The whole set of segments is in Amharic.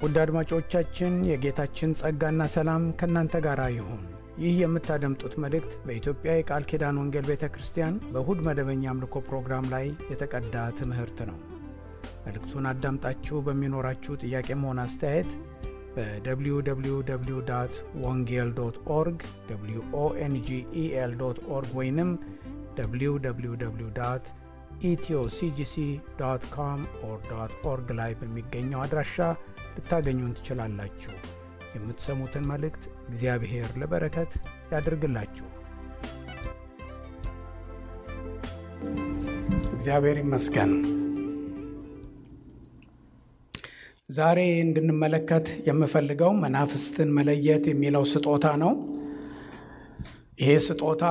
ውድ አድማጮቻችን የጌታችን ጸጋና ሰላም ከእናንተ ጋር ይሁን። ይህ የምታደምጡት መልእክት በኢትዮጵያ የቃል ኪዳን ወንጌል ቤተ ክርስቲያን በእሁድ መደበኛ አምልኮ ፕሮግራም ላይ የተቀዳ ትምህርት ነው። መልእክቱን አዳምጣችሁ በሚኖራችሁ ጥያቄም ሆነ አስተያየት በwww.wongel.org wongel.org ወይንም www.ethioCGC.com/org ላይ በሚገኘው አድራሻ ልታገኙን ትችላላችሁ። የምትሰሙትን መልእክት እግዚአብሔር ለበረከት ያድርግላችሁ። እግዚአብሔር ይመስገን። ዛሬ እንድንመለከት የምፈልገው መናፍስትን መለየት የሚለው ስጦታ ነው። ይሄ ስጦታ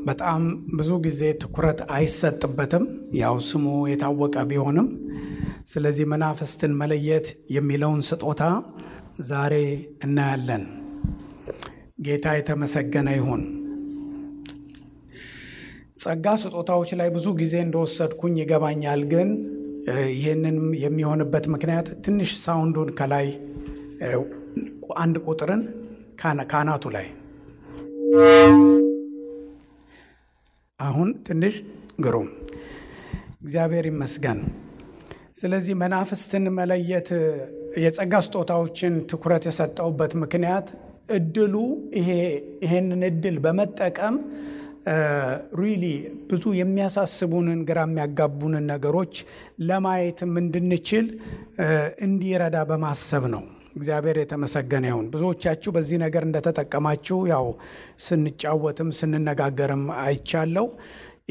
በጣም ብዙ ጊዜ ትኩረት አይሰጥበትም፣ ያው ስሙ የታወቀ ቢሆንም። ስለዚህ መናፍስትን መለየት የሚለውን ስጦታ ዛሬ እናያለን። ጌታ የተመሰገነ ይሁን። ጸጋ ስጦታዎች ላይ ብዙ ጊዜ እንደወሰድኩኝ ይገባኛል። ግን ይህንን የሚሆንበት ምክንያት ትንሽ ሳውንዱን ከላይ አንድ ቁጥርን ካናቱ ላይ አሁን ትንሽ ግሩም፣ እግዚአብሔር ይመስገን። ስለዚህ መናፍስትን መለየት የጸጋ ስጦታዎችን ትኩረት የሰጠውበት ምክንያት እድሉ ይሄንን እድል በመጠቀም ሪሊ ብዙ የሚያሳስቡንን ግራ የሚያጋቡንን ነገሮች ለማየትም እንድንችል እንዲረዳ በማሰብ ነው። እግዚአብሔር የተመሰገነ ይሁን። ብዙዎቻችሁ በዚህ ነገር እንደተጠቀማችሁ ያው ስንጫወትም ስንነጋገርም አይቻለው።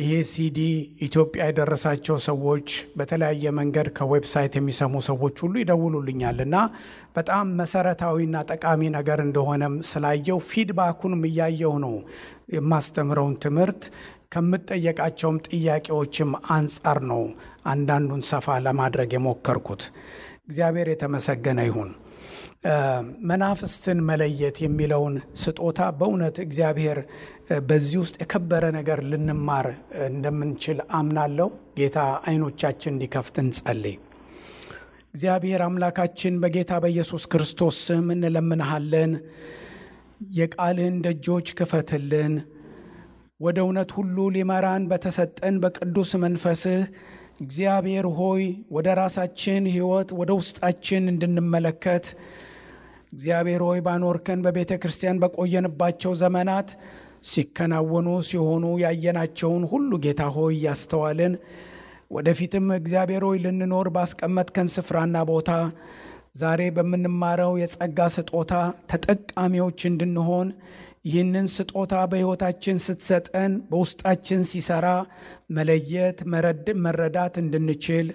ይሄ ሲዲ ኢትዮጵያ የደረሳቸው ሰዎች በተለያየ መንገድ ከዌብሳይት የሚሰሙ ሰዎች ሁሉ ይደውሉልኛል እና በጣም መሰረታዊና ጠቃሚ ነገር እንደሆነም ስላየው ፊድባኩንም እያየው ነው የማስተምረውን ትምህርት ከምጠየቃቸውም ጥያቄዎችም አንጻር ነው አንዳንዱን ሰፋ ለማድረግ የሞከርኩት። እግዚአብሔር የተመሰገነ ይሁን። መናፍስትን መለየት የሚለውን ስጦታ በእውነት እግዚአብሔር በዚህ ውስጥ የከበረ ነገር ልንማር እንደምንችል አምናለሁ። ጌታ አይኖቻችን እንዲከፍት እንጸልይ። እግዚአብሔር አምላካችን በጌታ በኢየሱስ ክርስቶስ ስም እንለምንሃለን። የቃልህን ደጆች ክፈትልን። ወደ እውነት ሁሉ ሊመራን በተሰጠን በቅዱስ መንፈስህ እግዚአብሔር ሆይ ወደ ራሳችን ሕይወት ወደ ውስጣችን እንድንመለከት እግዚአብሔር ሆይ ባኖርከን በቤተ ክርስቲያን በቆየንባቸው ዘመናት ሲከናወኑ ሲሆኑ ያየናቸውን ሁሉ ጌታ ሆይ ያስተዋልን ወደፊትም እግዚአብሔር ሆይ ልንኖር ባስቀመጥከን ስፍራና ቦታ ዛሬ በምንማረው የጸጋ ስጦታ ተጠቃሚዎች እንድንሆን ይህንን ስጦታ በሕይወታችን ስትሰጠን በውስጣችን ሲሰራ መለየት መረዳት እንድንችል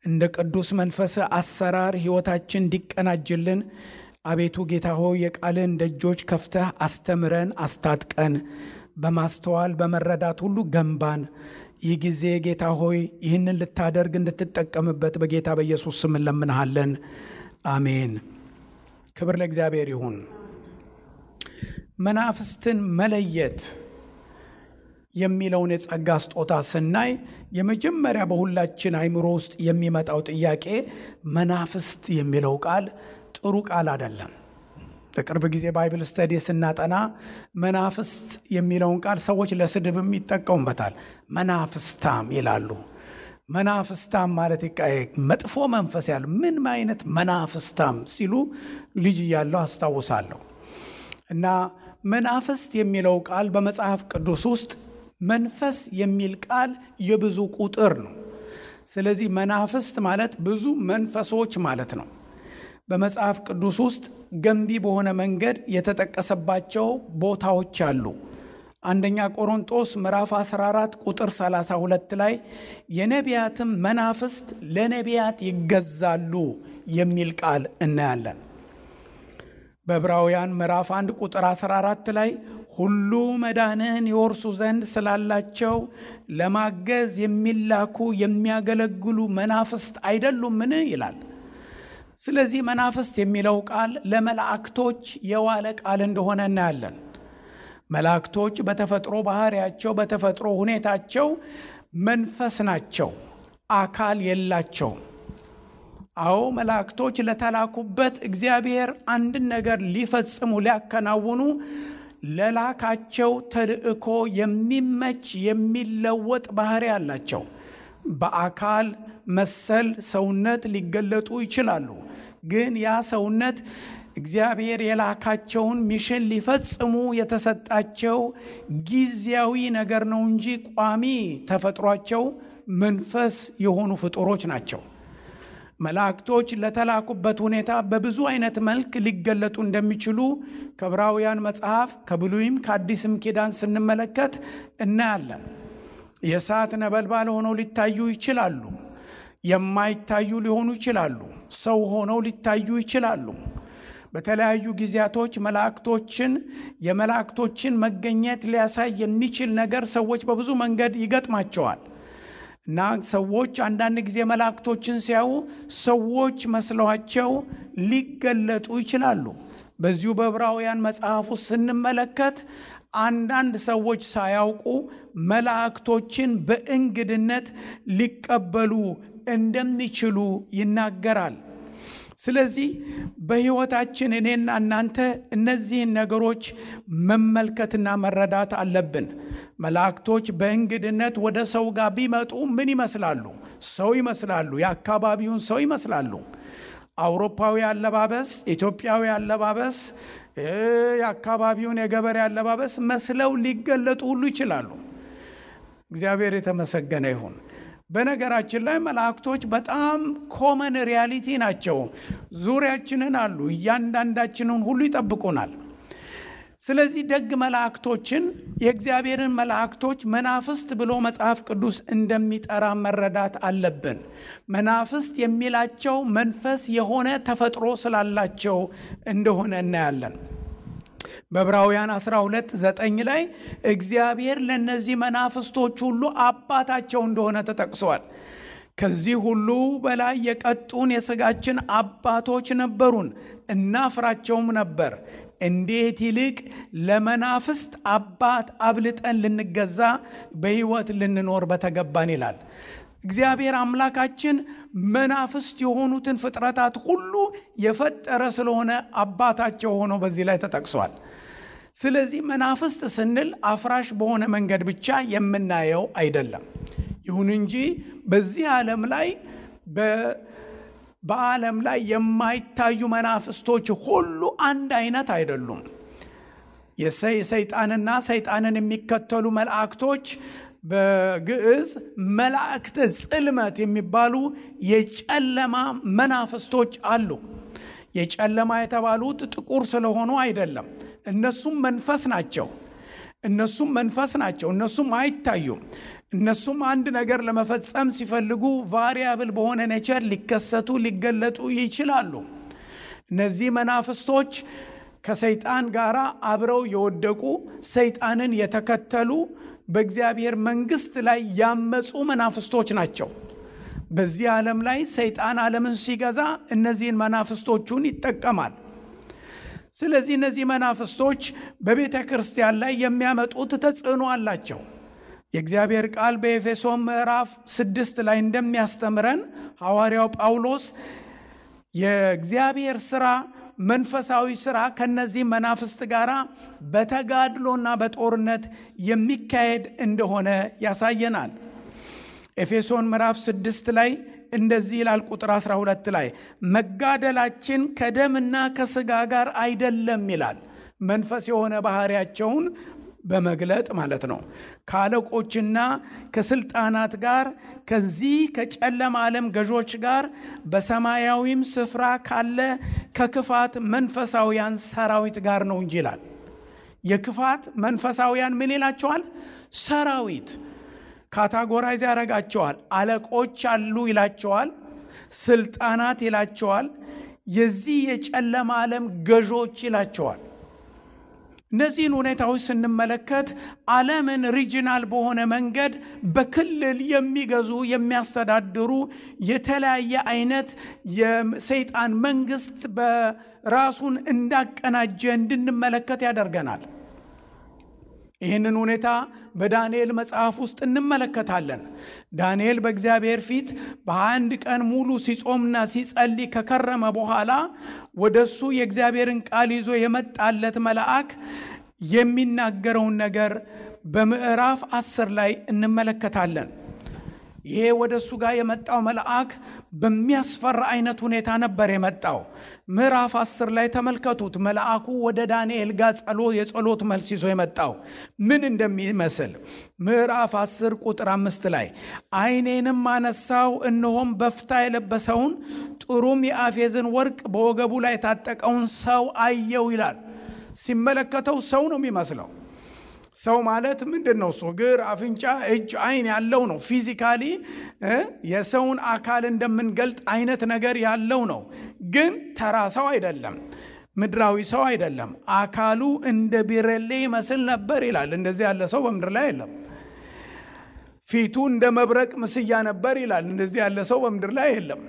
እንደ ቅዱስ መንፈስ አሰራር ሕይወታችን እንዲቀናጅልን አቤቱ ጌታ ሆይ የቃልን ደጆች ከፍተህ አስተምረን አስታጥቀን በማስተዋል በመረዳት ሁሉ ገንባን። ይህ ጊዜ ጌታ ሆይ ይህንን ልታደርግ እንድትጠቀምበት በጌታ በኢየሱስ ስም እንለምንሃለን። አሜን። ክብር ለእግዚአብሔር ይሁን። መናፍስትን መለየት የሚለውን የጸጋ ስጦታ ስናይ የመጀመሪያ በሁላችን አይምሮ ውስጥ የሚመጣው ጥያቄ መናፍስት የሚለው ቃል ጥሩ ቃል አይደለም። በቅርብ ጊዜ ባይብል ስተዲ ስናጠና መናፍስት የሚለውን ቃል ሰዎች ለስድብም ይጠቀሙበታል። መናፍስታም ይላሉ። መናፍስታም ማለት መጥፎ መንፈስ ያለው ምን አይነት መናፍስታም ሲሉ ልጅ እያለሁ አስታውሳለሁ። እና መናፍስት የሚለው ቃል በመጽሐፍ ቅዱስ ውስጥ መንፈስ የሚል ቃል የብዙ ቁጥር ነው። ስለዚህ መናፍስት ማለት ብዙ መንፈሶች ማለት ነው። በመጽሐፍ ቅዱስ ውስጥ ገንቢ በሆነ መንገድ የተጠቀሰባቸው ቦታዎች አሉ። አንደኛ ቆሮንቶስ ምዕራፍ 14 ቁጥር 32 ላይ የነቢያትም መናፍስት ለነቢያት ይገዛሉ የሚል ቃል እናያለን። በዕብራውያን ምዕራፍ 1 ቁጥር 14 ላይ ሁሉ መዳንን ይወርሱ ዘንድ ስላላቸው ለማገዝ የሚላኩ የሚያገለግሉ መናፍስት አይደሉምን ይላል። ስለዚህ መናፍስት የሚለው ቃል ለመላእክቶች የዋለ ቃል እንደሆነ እናያለን። መላእክቶች በተፈጥሮ ባህሪያቸው በተፈጥሮ ሁኔታቸው መንፈስ ናቸው፣ አካል የላቸውም። አዎ መላእክቶች ለተላኩበት እግዚአብሔር አንድን ነገር ሊፈጽሙ ሊያከናውኑ ለላካቸው ተልእኮ የሚመች የሚለወጥ ባህሪ አላቸው። በአካል መሰል ሰውነት ሊገለጡ ይችላሉ። ግን ያ ሰውነት እግዚአብሔር የላካቸውን ሚሽን ሊፈጽሙ የተሰጣቸው ጊዜያዊ ነገር ነው እንጂ ቋሚ ተፈጥሯቸው መንፈስ የሆኑ ፍጡሮች ናቸው። መላእክቶች ለተላኩበት ሁኔታ በብዙ አይነት መልክ ሊገለጡ እንደሚችሉ ከዕብራውያን መጽሐፍ ከብሉይም ከአዲስም ኪዳን ስንመለከት እናያለን። የእሳት ነበልባል ሆነው ሊታዩ ይችላሉ። የማይታዩ ሊሆኑ ይችላሉ። ሰው ሆነው ሊታዩ ይችላሉ። በተለያዩ ጊዜያቶች የመላእክቶችን መገኘት ሊያሳይ የሚችል ነገር ሰዎች በብዙ መንገድ ይገጥማቸዋል እና ሰዎች አንዳንድ ጊዜ መላእክቶችን ሲያዩ ሰዎች መስለዋቸው ሊገለጡ ይችላሉ። በዚሁ በዕብራውያን መጽሐፍ ውስጥ ስንመለከት አንዳንድ ሰዎች ሳያውቁ መላእክቶችን በእንግድነት ሊቀበሉ እንደሚችሉ ይናገራል። ስለዚህ በሕይወታችን እኔና እናንተ እነዚህን ነገሮች መመልከትና መረዳት አለብን። መላእክቶች በእንግድነት ወደ ሰው ጋር ቢመጡ ምን ይመስላሉ? ሰው ይመስላሉ። የአካባቢውን ሰው ይመስላሉ። አውሮፓዊ አለባበስ፣ ኢትዮጵያዊ አለባበስ፣ የአካባቢውን የገበሬ አለባበስ መስለው ሊገለጡ ሁሉ ይችላሉ። እግዚአብሔር የተመሰገነ ይሁን። በነገራችን ላይ መላእክቶች በጣም ኮመን ሪያሊቲ ናቸው። ዙሪያችንን አሉ። እያንዳንዳችንን ሁሉ ይጠብቁናል። ስለዚህ ደግ መላእክቶችን የእግዚአብሔርን መላእክቶች መናፍስት ብሎ መጽሐፍ ቅዱስ እንደሚጠራ መረዳት አለብን። መናፍስት የሚላቸው መንፈስ የሆነ ተፈጥሮ ስላላቸው እንደሆነ እናያለን። በዕብራውያን 12:9 ላይ እግዚአብሔር ለነዚህ መናፍስቶች ሁሉ አባታቸው እንደሆነ ተጠቅሷል። ከዚህ ሁሉ በላይ የቀጡን የሥጋችን አባቶች ነበሩን፣ እናፍራቸውም ነበር። እንዴት ይልቅ ለመናፍስት አባት አብልጠን ልንገዛ በሕይወት ልንኖር በተገባን ይላል። እግዚአብሔር አምላካችን መናፍስት የሆኑትን ፍጥረታት ሁሉ የፈጠረ ስለሆነ አባታቸው ሆኖ በዚህ ላይ ተጠቅሷል። ስለዚህ መናፍስት ስንል አፍራሽ በሆነ መንገድ ብቻ የምናየው አይደለም። ይሁን እንጂ በዚህ ዓለም ላይ በዓለም ላይ የማይታዩ መናፍስቶች ሁሉ አንድ አይነት አይደሉም። የሰይጣንና ሰይጣንን የሚከተሉ መላእክቶች በግዕዝ መላእክተ ጽልመት የሚባሉ የጨለማ መናፍስቶች አሉ። የጨለማ የተባሉት ጥቁር ስለሆኑ አይደለም። እነሱም መንፈስ ናቸው። እነሱም አይታዩም። እነሱም አንድ ነገር ለመፈጸም ሲፈልጉ ቫሪያብል በሆነ ኔቸር ሊከሰቱ ሊገለጡ ይችላሉ። እነዚህ መናፍስቶች ከሰይጣን ጋር አብረው የወደቁ ሰይጣንን የተከተሉ በእግዚአብሔር መንግስት ላይ ያመጹ መናፍስቶች ናቸው። በዚህ ዓለም ላይ ሰይጣን ዓለምን ሲገዛ እነዚህን መናፍስቶቹን ይጠቀማል። ስለዚህ እነዚህ መናፍስቶች በቤተ ክርስቲያን ላይ የሚያመጡት ተጽዕኖ አላቸው። የእግዚአብሔር ቃል በኤፌሶን ምዕራፍ 6 ላይ እንደሚያስተምረን ሐዋርያው ጳውሎስ የእግዚአብሔር ሥራ መንፈሳዊ ሥራ ከነዚህ መናፍስት ጋር በተጋድሎና በጦርነት የሚካሄድ እንደሆነ ያሳየናል። ኤፌሶን ምዕራፍ 6 ላይ እንደዚህ ይላል። ቁጥር 12 ላይ መጋደላችን ከደምና ከሥጋ ጋር አይደለም ይላል። መንፈስ የሆነ ባህሪያቸውን በመግለጥ ማለት ነው። ከአለቆችና ከስልጣናት ጋር ከዚህ ከጨለማ ዓለም ገዦች ጋር በሰማያዊም ስፍራ ካለ ከክፋት መንፈሳውያን ሰራዊት ጋር ነው እንጂ ይላል። የክፋት መንፈሳውያን ምን ይላቸዋል? ሰራዊት። ካታጎራይዝ ያደርጋቸዋል። አለቆች አሉ ይላቸዋል። ስልጣናት ይላቸዋል። የዚህ የጨለማ ዓለም ገዦች ይላቸዋል። እነዚህን ሁኔታዎች ስንመለከት ዓለምን ሪጂናል በሆነ መንገድ በክልል የሚገዙ የሚያስተዳድሩ የተለያየ አይነት የሰይጣን መንግስት በራሱን እንዳቀናጀ እንድንመለከት ያደርገናል። ይህንን ሁኔታ በዳንኤል መጽሐፍ ውስጥ እንመለከታለን። ዳንኤል በእግዚአብሔር ፊት በ21 ቀን ሙሉ ሲጾምና ሲጸልይ ከከረመ በኋላ ወደሱ የእግዚአብሔርን ቃል ይዞ የመጣለት መልአክ የሚናገረውን ነገር በምዕራፍ 10 ላይ እንመለከታለን። ይሄ ወደሱ ጋር የመጣው መልአክ በሚያስፈራ አይነት ሁኔታ ነበር የመጣው። ምዕራፍ 10 ላይ ተመልከቱት። መልአኩ ወደ ዳንኤል ጋር የጸሎት መልስ ይዞ የመጣው ምን እንደሚመስል ምዕራፍ 10 ቁጥር 5 ላይ ዓይኔንም አነሳው፣ እነሆም በፍታ የለበሰውን ጥሩም የአፌዝን ወርቅ በወገቡ ላይ የታጠቀውን ሰው አየው ይላል። ሲመለከተው ሰው ነው የሚመስለው። ሰው ማለት ምንድነው? እግር፣ አፍንጫ፣ እጅ፣ አይን ያለው ነው። ፊዚካሊ የሰውን አካል እንደምንገልጥ አይነት ነገር ያለው ነው። ግን ተራ ሰው አይደለም፣ ምድራዊ ሰው አይደለም። አካሉ እንደ ቢረሌ ይመስል ነበር ይላል። እንደዚህ ያለ ሰው በምድር ላይ የለም። ፊቱ እንደ መብረቅ ምስያ ነበር ይላል። እንደዚህ ያለ ሰው በምድር ላይ የለም።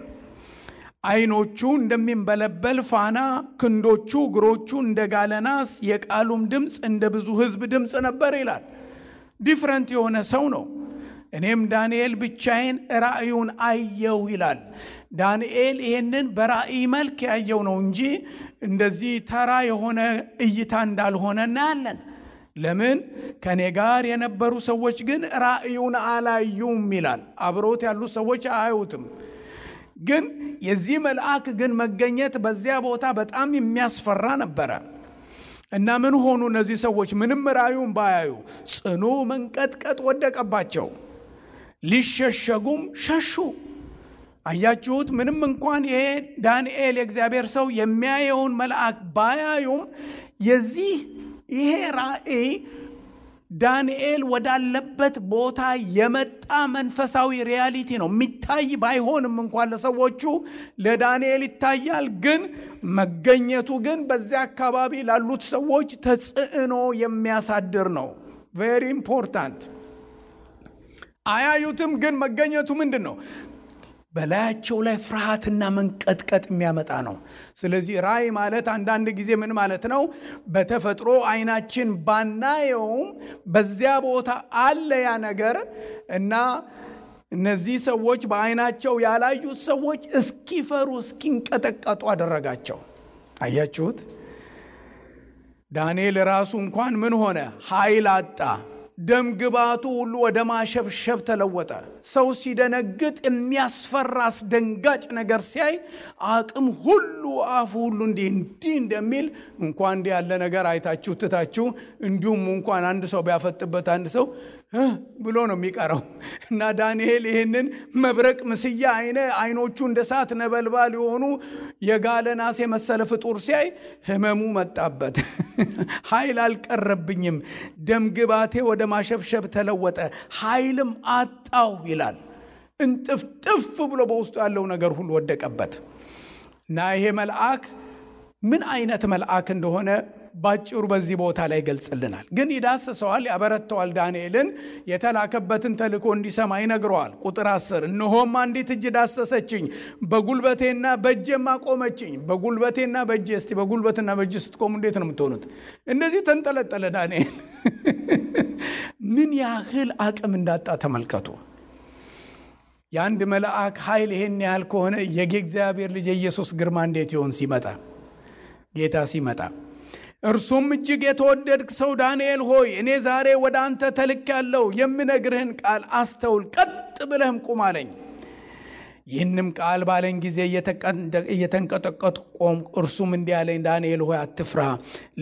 አይኖቹ እንደሚንበለበል ፋና፣ ክንዶቹ እግሮቹ እንደ ጋለ ናስ፣ የቃሉም ድምፅ እንደ ብዙ ሕዝብ ድምፅ ነበር ይላል። ዲፍረንት የሆነ ሰው ነው። እኔም ዳንኤል ብቻዬን ራእዩን አየው ይላል። ዳንኤል ይህንን በራእይ መልክ ያየው ነው እንጂ እንደዚህ ተራ የሆነ እይታ እንዳልሆነ እናያለን። ለምን? ከኔ ጋር የነበሩ ሰዎች ግን ራእዩን አላዩም ይላል። አብሮት ያሉት ሰዎች አያዩትም። ግን የዚህ መልአክ ግን መገኘት በዚያ ቦታ በጣም የሚያስፈራ ነበረ። እና ምን ሆኑ እነዚህ ሰዎች? ምንም ራእዩን ባያዩ ጽኑ መንቀጥቀጥ ወደቀባቸው፣ ሊሸሸጉም ሸሹ። አያችሁት? ምንም እንኳን ይሄ ዳንኤል የእግዚአብሔር ሰው የሚያየውን መልአክ ባያዩም ይሄ ራእይ ዳንኤል ወዳለበት ቦታ የመጣ መንፈሳዊ ሪያሊቲ ነው። የሚታይ ባይሆንም እንኳን ለሰዎቹ ለዳንኤል ይታያል። ግን መገኘቱ ግን በዚያ አካባቢ ላሉት ሰዎች ተጽዕኖ የሚያሳድር ነው። ቬሪ ኢምፖርታንት። አያዩትም፣ ግን መገኘቱ ምንድን ነው? በላያቸው ላይ ፍርሃትና መንቀጥቀጥ የሚያመጣ ነው። ስለዚህ ራእይ ማለት አንዳንድ ጊዜ ምን ማለት ነው? በተፈጥሮ አይናችን ባናየውም በዚያ ቦታ አለ ያ ነገር እና እነዚህ ሰዎች በአይናቸው ያላዩት ሰዎች እስኪፈሩ እስኪንቀጠቀጡ አደረጋቸው። አያችሁት? ዳንኤል ራሱ እንኳን ምን ሆነ? ኃይል አጣ። ደም ግባቱ ሁሉ ወደ ማሸብሸብ ተለወጠ። ሰው ሲደነግጥ የሚያስፈራ አስደንጋጭ ነገር ሲያይ አቅም ሁሉ አፉ ሁሉ እንዲህ እንደሚል እንኳን እንዲህ ያለ ነገር አይታችሁ ትታችሁ እንዲሁም እንኳን አንድ ሰው ቢያፈጥበት አንድ ሰው ብሎ ነው የሚቀረው። እና ዳንኤል ይህንን መብረቅ ምስያ አይኖቹ እንደ እሳት ነበልባል የሆኑ የጋለ ናስ የመሰለ ፍጡር ሲያይ ህመሙ መጣበት። ኃይል አልቀረብኝም፣ ደም ግባቴ ወደ ማሸብሸብ ተለወጠ፣ ኃይልም አጣው ይላል። እንጥፍጥፍ ብሎ በውስጡ ያለው ነገር ሁሉ ወደቀበት። እና ይሄ መልአክ ምን አይነት መልአክ እንደሆነ ባጭሩ በዚህ ቦታ ላይ ገልጽልናል። ግን ይዳስሰዋል፣ ያበረተዋል። ዳንኤልን የተላከበትን ተልእኮ እንዲሰማ ይነግረዋል። ቁጥር 10 እነሆም አንዲት እጅ ዳሰሰችኝ፣ በጉልበቴና በእጄም አቆመችኝ። በጉልበቴና በእጄ። እስቲ በጉልበትና በእጅ ስትቆሙ እንዴት ነው የምትሆኑት? እንደዚህ ተንጠለጠለ ዳንኤል። ምን ያህል አቅም እንዳጣ ተመልከቱ። የአንድ መልአክ ኃይል ይሄን ያህል ከሆነ የእግዚአብሔር ልጅ የኢየሱስ ግርማ እንዴት ይሆን ሲመጣ? ጌታ ሲመጣ እርሱም እጅግ የተወደድክ ሰው ዳንኤል ሆይ እኔ ዛሬ ወደ አንተ ተልኬአለሁ፣ የምነግርህን ቃል አስተውል፣ ቀጥ ብለህም ቁም አለኝ። ይህንም ቃል ባለኝ ጊዜ እየተንቀጠቀጥኩ ቆምኩ። እርሱም እንዲህ አለኝ፣ ዳንኤል ሆይ አትፍራ።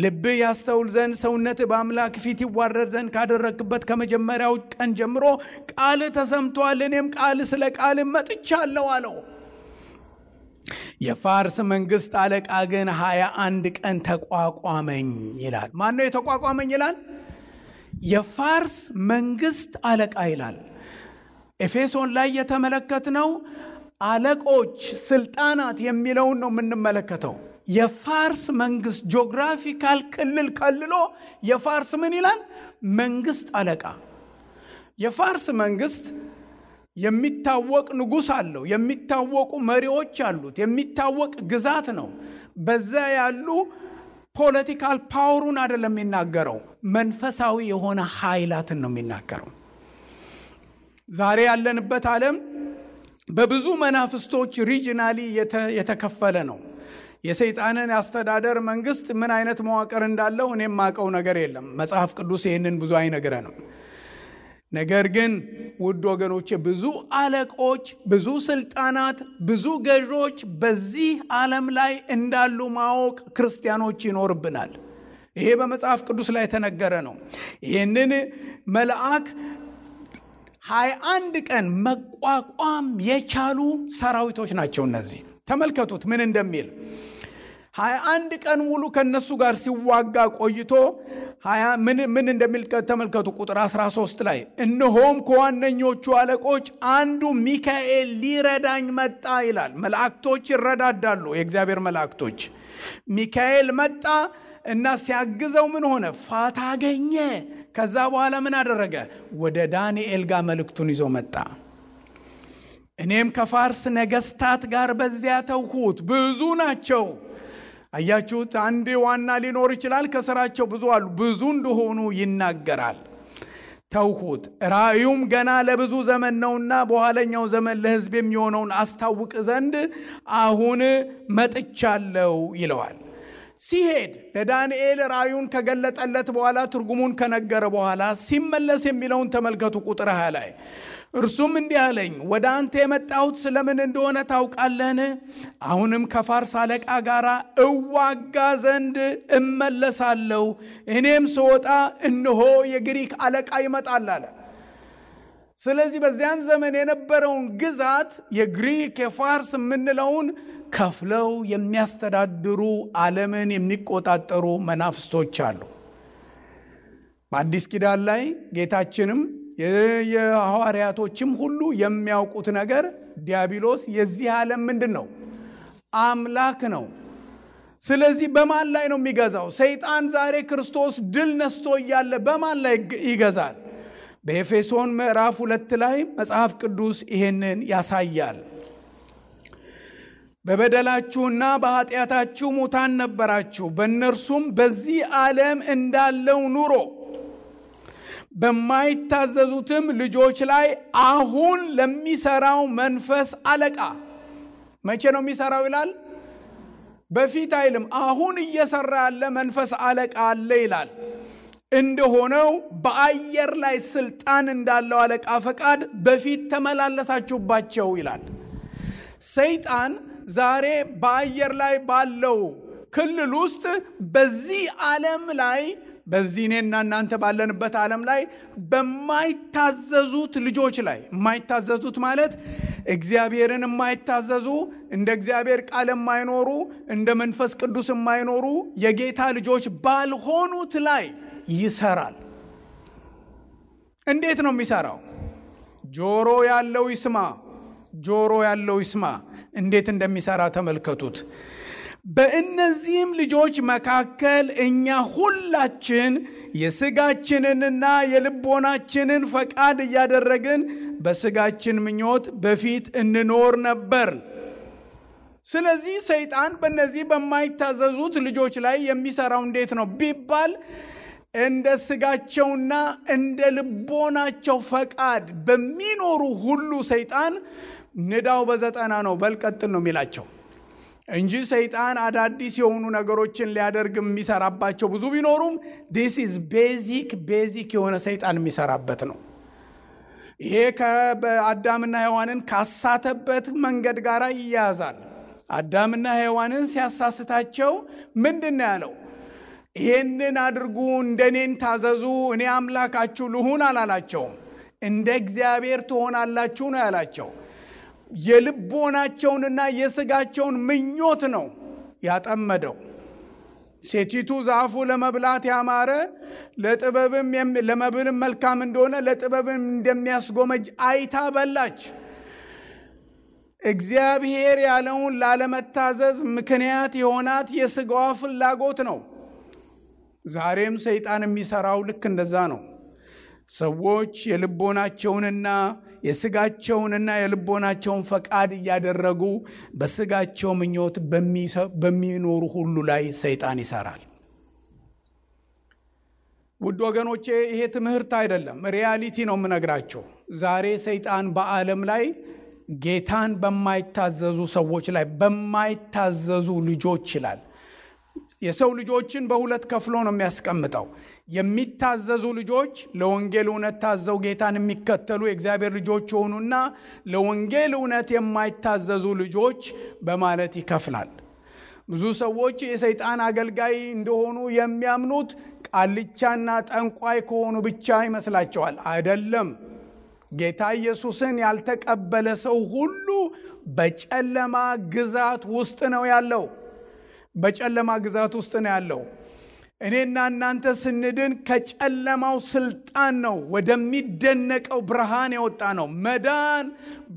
ልብህ ያስተውል ዘንድ ሰውነትህ በአምላክ ፊት ይዋረድ ዘንድ ካደረግክበት ከመጀመሪያው ቀን ጀምሮ ቃልህ ተሰምቷል። እኔም ስለ ቃልህ መጥቻለሁ አለው። የፋርስ መንግስት አለቃ ግን 21 ቀን ተቋቋመኝ ይላል። ማን ነው የተቋቋመኝ ይላል? የፋርስ መንግስት አለቃ ይላል። ኤፌሶን ላይ የተመለከትነው አለቆች፣ ስልጣናት የሚለውን ነው የምንመለከተው። የፋርስ መንግስት ጂኦግራፊካል ክልል ከልሎ የፋርስ ምን ይላል? መንግስት አለቃ። የፋርስ መንግስት የሚታወቅ ንጉስ አለው፣ የሚታወቁ መሪዎች አሉት፣ የሚታወቅ ግዛት ነው። በዛ ያሉ ፖለቲካል ፓወሩን አይደለም የሚናገረው፣ መንፈሳዊ የሆነ ኃይላትን ነው የሚናገረው። ዛሬ ያለንበት ዓለም በብዙ መናፍስቶች ሪጂናሊ የተከፈለ ነው። የሰይጣንን አስተዳደር መንግስት ምን አይነት መዋቅር እንዳለው እኔም ማቀው ነገር የለም። መጽሐፍ ቅዱስ ይህንን ብዙ አይነግረንም። ነገር ግን ውድ ወገኖቼ ብዙ አለቆች፣ ብዙ ስልጣናት፣ ብዙ ገዦች በዚህ ዓለም ላይ እንዳሉ ማወቅ ክርስቲያኖች ይኖርብናል። ይሄ በመጽሐፍ ቅዱስ ላይ የተነገረ ነው። ይህንን መልአክ 21 ቀን መቋቋም የቻሉ ሰራዊቶች ናቸው እነዚህ። ተመልከቱት ምን እንደሚል። 21 ቀን ሙሉ ከነሱ ጋር ሲዋጋ ቆይቶ ምን እንደሚል ተመልከቱ። ቁጥር 13 ላይ እነሆም ከዋነኞቹ አለቆች አንዱ ሚካኤል ሊረዳኝ መጣ ይላል። መላእክቶች ይረዳዳሉ፣ የእግዚአብሔር መላእክቶች። ሚካኤል መጣ እና ሲያግዘው ምን ሆነ? ፋታ አገኘ። ከዛ በኋላ ምን አደረገ? ወደ ዳንኤል ጋር መልእክቱን ይዞ መጣ። እኔም ከፋርስ ነገስታት ጋር በዚያ ተውሁት። ብዙ ናቸው። አያችሁት? አንድ ዋና ሊኖር ይችላል፣ ከስራቸው ብዙ አሉ። ብዙ እንደሆኑ ይናገራል። ተውሁት፣ ራእዩም ገና ለብዙ ዘመን ነውና በኋለኛው ዘመን ለሕዝብ የሚሆነውን አስታውቅ ዘንድ አሁን መጥቻለሁ ይለዋል። ሲሄድ ለዳንኤል ራእዩን ከገለጠለት በኋላ ትርጉሙን ከነገረ በኋላ ሲመለስ የሚለውን ተመልከቱ። ቁጥር 20 ላይ እርሱም እንዲህ አለኝ፣ ወደ አንተ የመጣሁት ስለምን እንደሆነ ታውቃለህን? አሁንም ከፋርስ አለቃ ጋር እዋጋ ዘንድ እመለሳለሁ። እኔም ስወጣ እነሆ የግሪክ አለቃ ይመጣል አለ። ስለዚህ በዚያን ዘመን የነበረውን ግዛት የግሪክ የፋርስ የምንለውን ከፍለው የሚያስተዳድሩ ዓለምን የሚቆጣጠሩ መናፍስቶች አሉ። በአዲስ ኪዳን ላይ ጌታችንም የሐዋርያቶችም ሁሉ የሚያውቁት ነገር ዲያብሎስ የዚህ ዓለም ምንድን ነው? አምላክ ነው። ስለዚህ በማን ላይ ነው የሚገዛው? ሰይጣን ዛሬ ክርስቶስ ድል ነስቶ እያለ በማን ላይ ይገዛል? በኤፌሶን ምዕራፍ 2 ላይ መጽሐፍ ቅዱስ ይሄንን ያሳያል። በበደላችሁና በኃጢአታችሁ ሙታን ነበራችሁ፣ በእነርሱም በዚህ ዓለም እንዳለው ኑሮ በማይታዘዙትም ልጆች ላይ አሁን ለሚሰራው መንፈስ አለቃ። መቼ ነው የሚሰራው ይላል? በፊት አይልም። አሁን እየሰራ ያለ መንፈስ አለቃ አለ ይላል። እንደሆነው በአየር ላይ ስልጣን እንዳለው አለቃ ፈቃድ በፊት ተመላለሳችሁባቸው ይላል። ሰይጣን ዛሬ በአየር ላይ ባለው ክልል ውስጥ በዚህ ዓለም ላይ በዚህ እኔና እናንተ ባለንበት ዓለም ላይ በማይታዘዙት ልጆች ላይ፣ የማይታዘዙት ማለት እግዚአብሔርን የማይታዘዙ፣ እንደ እግዚአብሔር ቃል የማይኖሩ፣ እንደ መንፈስ ቅዱስ የማይኖሩ የጌታ ልጆች ባልሆኑት ላይ ይሰራል። እንዴት ነው የሚሰራው? ጆሮ ያለው ይስማ፣ ጆሮ ያለው ይስማ። እንዴት እንደሚሰራ ተመልከቱት። በእነዚህም ልጆች መካከል እኛ ሁላችን የሥጋችንንና የልቦናችንን ፈቃድ እያደረግን በሥጋችን ምኞት በፊት እንኖር ነበር። ስለዚህ ሰይጣን በእነዚህ በማይታዘዙት ልጆች ላይ የሚሰራው እንዴት ነው ቢባል እንደ ሥጋቸውና እንደ ልቦናቸው ፈቃድ በሚኖሩ ሁሉ ሰይጣን ንዳው በዘጠና ነው በልቀጥል ነው የሚላቸው እንጂ ሰይጣን አዳዲስ የሆኑ ነገሮችን ሊያደርግ የሚሰራባቸው ብዙ ቢኖሩም this is ቤዚክ የሆነ ሰይጣን የሚሰራበት ነው። ይሄ ከአዳምና ሔዋንን ካሳተበት መንገድ ጋር ይያያዛል። አዳምና ሔዋንን ሲያሳስታቸው ምንድን ያለው? ይሄንን አድርጉ፣ እንደኔን ታዘዙ፣ እኔ አምላካችሁ ልሁን አላላቸውም። እንደ እግዚአብሔር ትሆናላችሁ ነው ያላቸው። የልቦናቸውንና የሥጋቸውን ምኞት ነው ያጠመደው። ሴቲቱ ዛፉ ለመብላት ያማረ ለመብልም መልካም እንደሆነ ለጥበብም እንደሚያስጎመጅ አይታ በላች። እግዚአብሔር ያለውን ላለመታዘዝ ምክንያት የሆናት የሥጋዋ ፍላጎት ነው። ዛሬም ሰይጣን የሚሰራው ልክ እንደዛ ነው። ሰዎች የልቦናቸውንና የሥጋቸውንና የልቦናቸውን ፈቃድ እያደረጉ በሥጋቸው ምኞት በሚኖሩ ሁሉ ላይ ሰይጣን ይሰራል። ውድ ወገኖቼ ይሄ ትምህርት አይደለም፣ ሪያሊቲ ነው የምነግራችሁ። ዛሬ ሰይጣን በዓለም ላይ ጌታን በማይታዘዙ ሰዎች ላይ በማይታዘዙ ልጆች ይላል። የሰው ልጆችን በሁለት ከፍሎ ነው የሚያስቀምጠው። የሚታዘዙ ልጆች ለወንጌል እውነት ታዘው ጌታን የሚከተሉ የእግዚአብሔር ልጆች የሆኑና ለወንጌል እውነት የማይታዘዙ ልጆች በማለት ይከፍላል። ብዙ ሰዎች የሰይጣን አገልጋይ እንደሆኑ የሚያምኑት ቃልቻና ጠንቋይ ከሆኑ ብቻ ይመስላቸዋል። አይደለም። ጌታ ኢየሱስን ያልተቀበለ ሰው ሁሉ በጨለማ ግዛት ውስጥ ነው ያለው። በጨለማ ግዛት ውስጥ ነው ያለው። እኔና እናንተ ስንድን ከጨለማው ስልጣን ነው ወደሚደነቀው ብርሃን የወጣ ነው። መዳን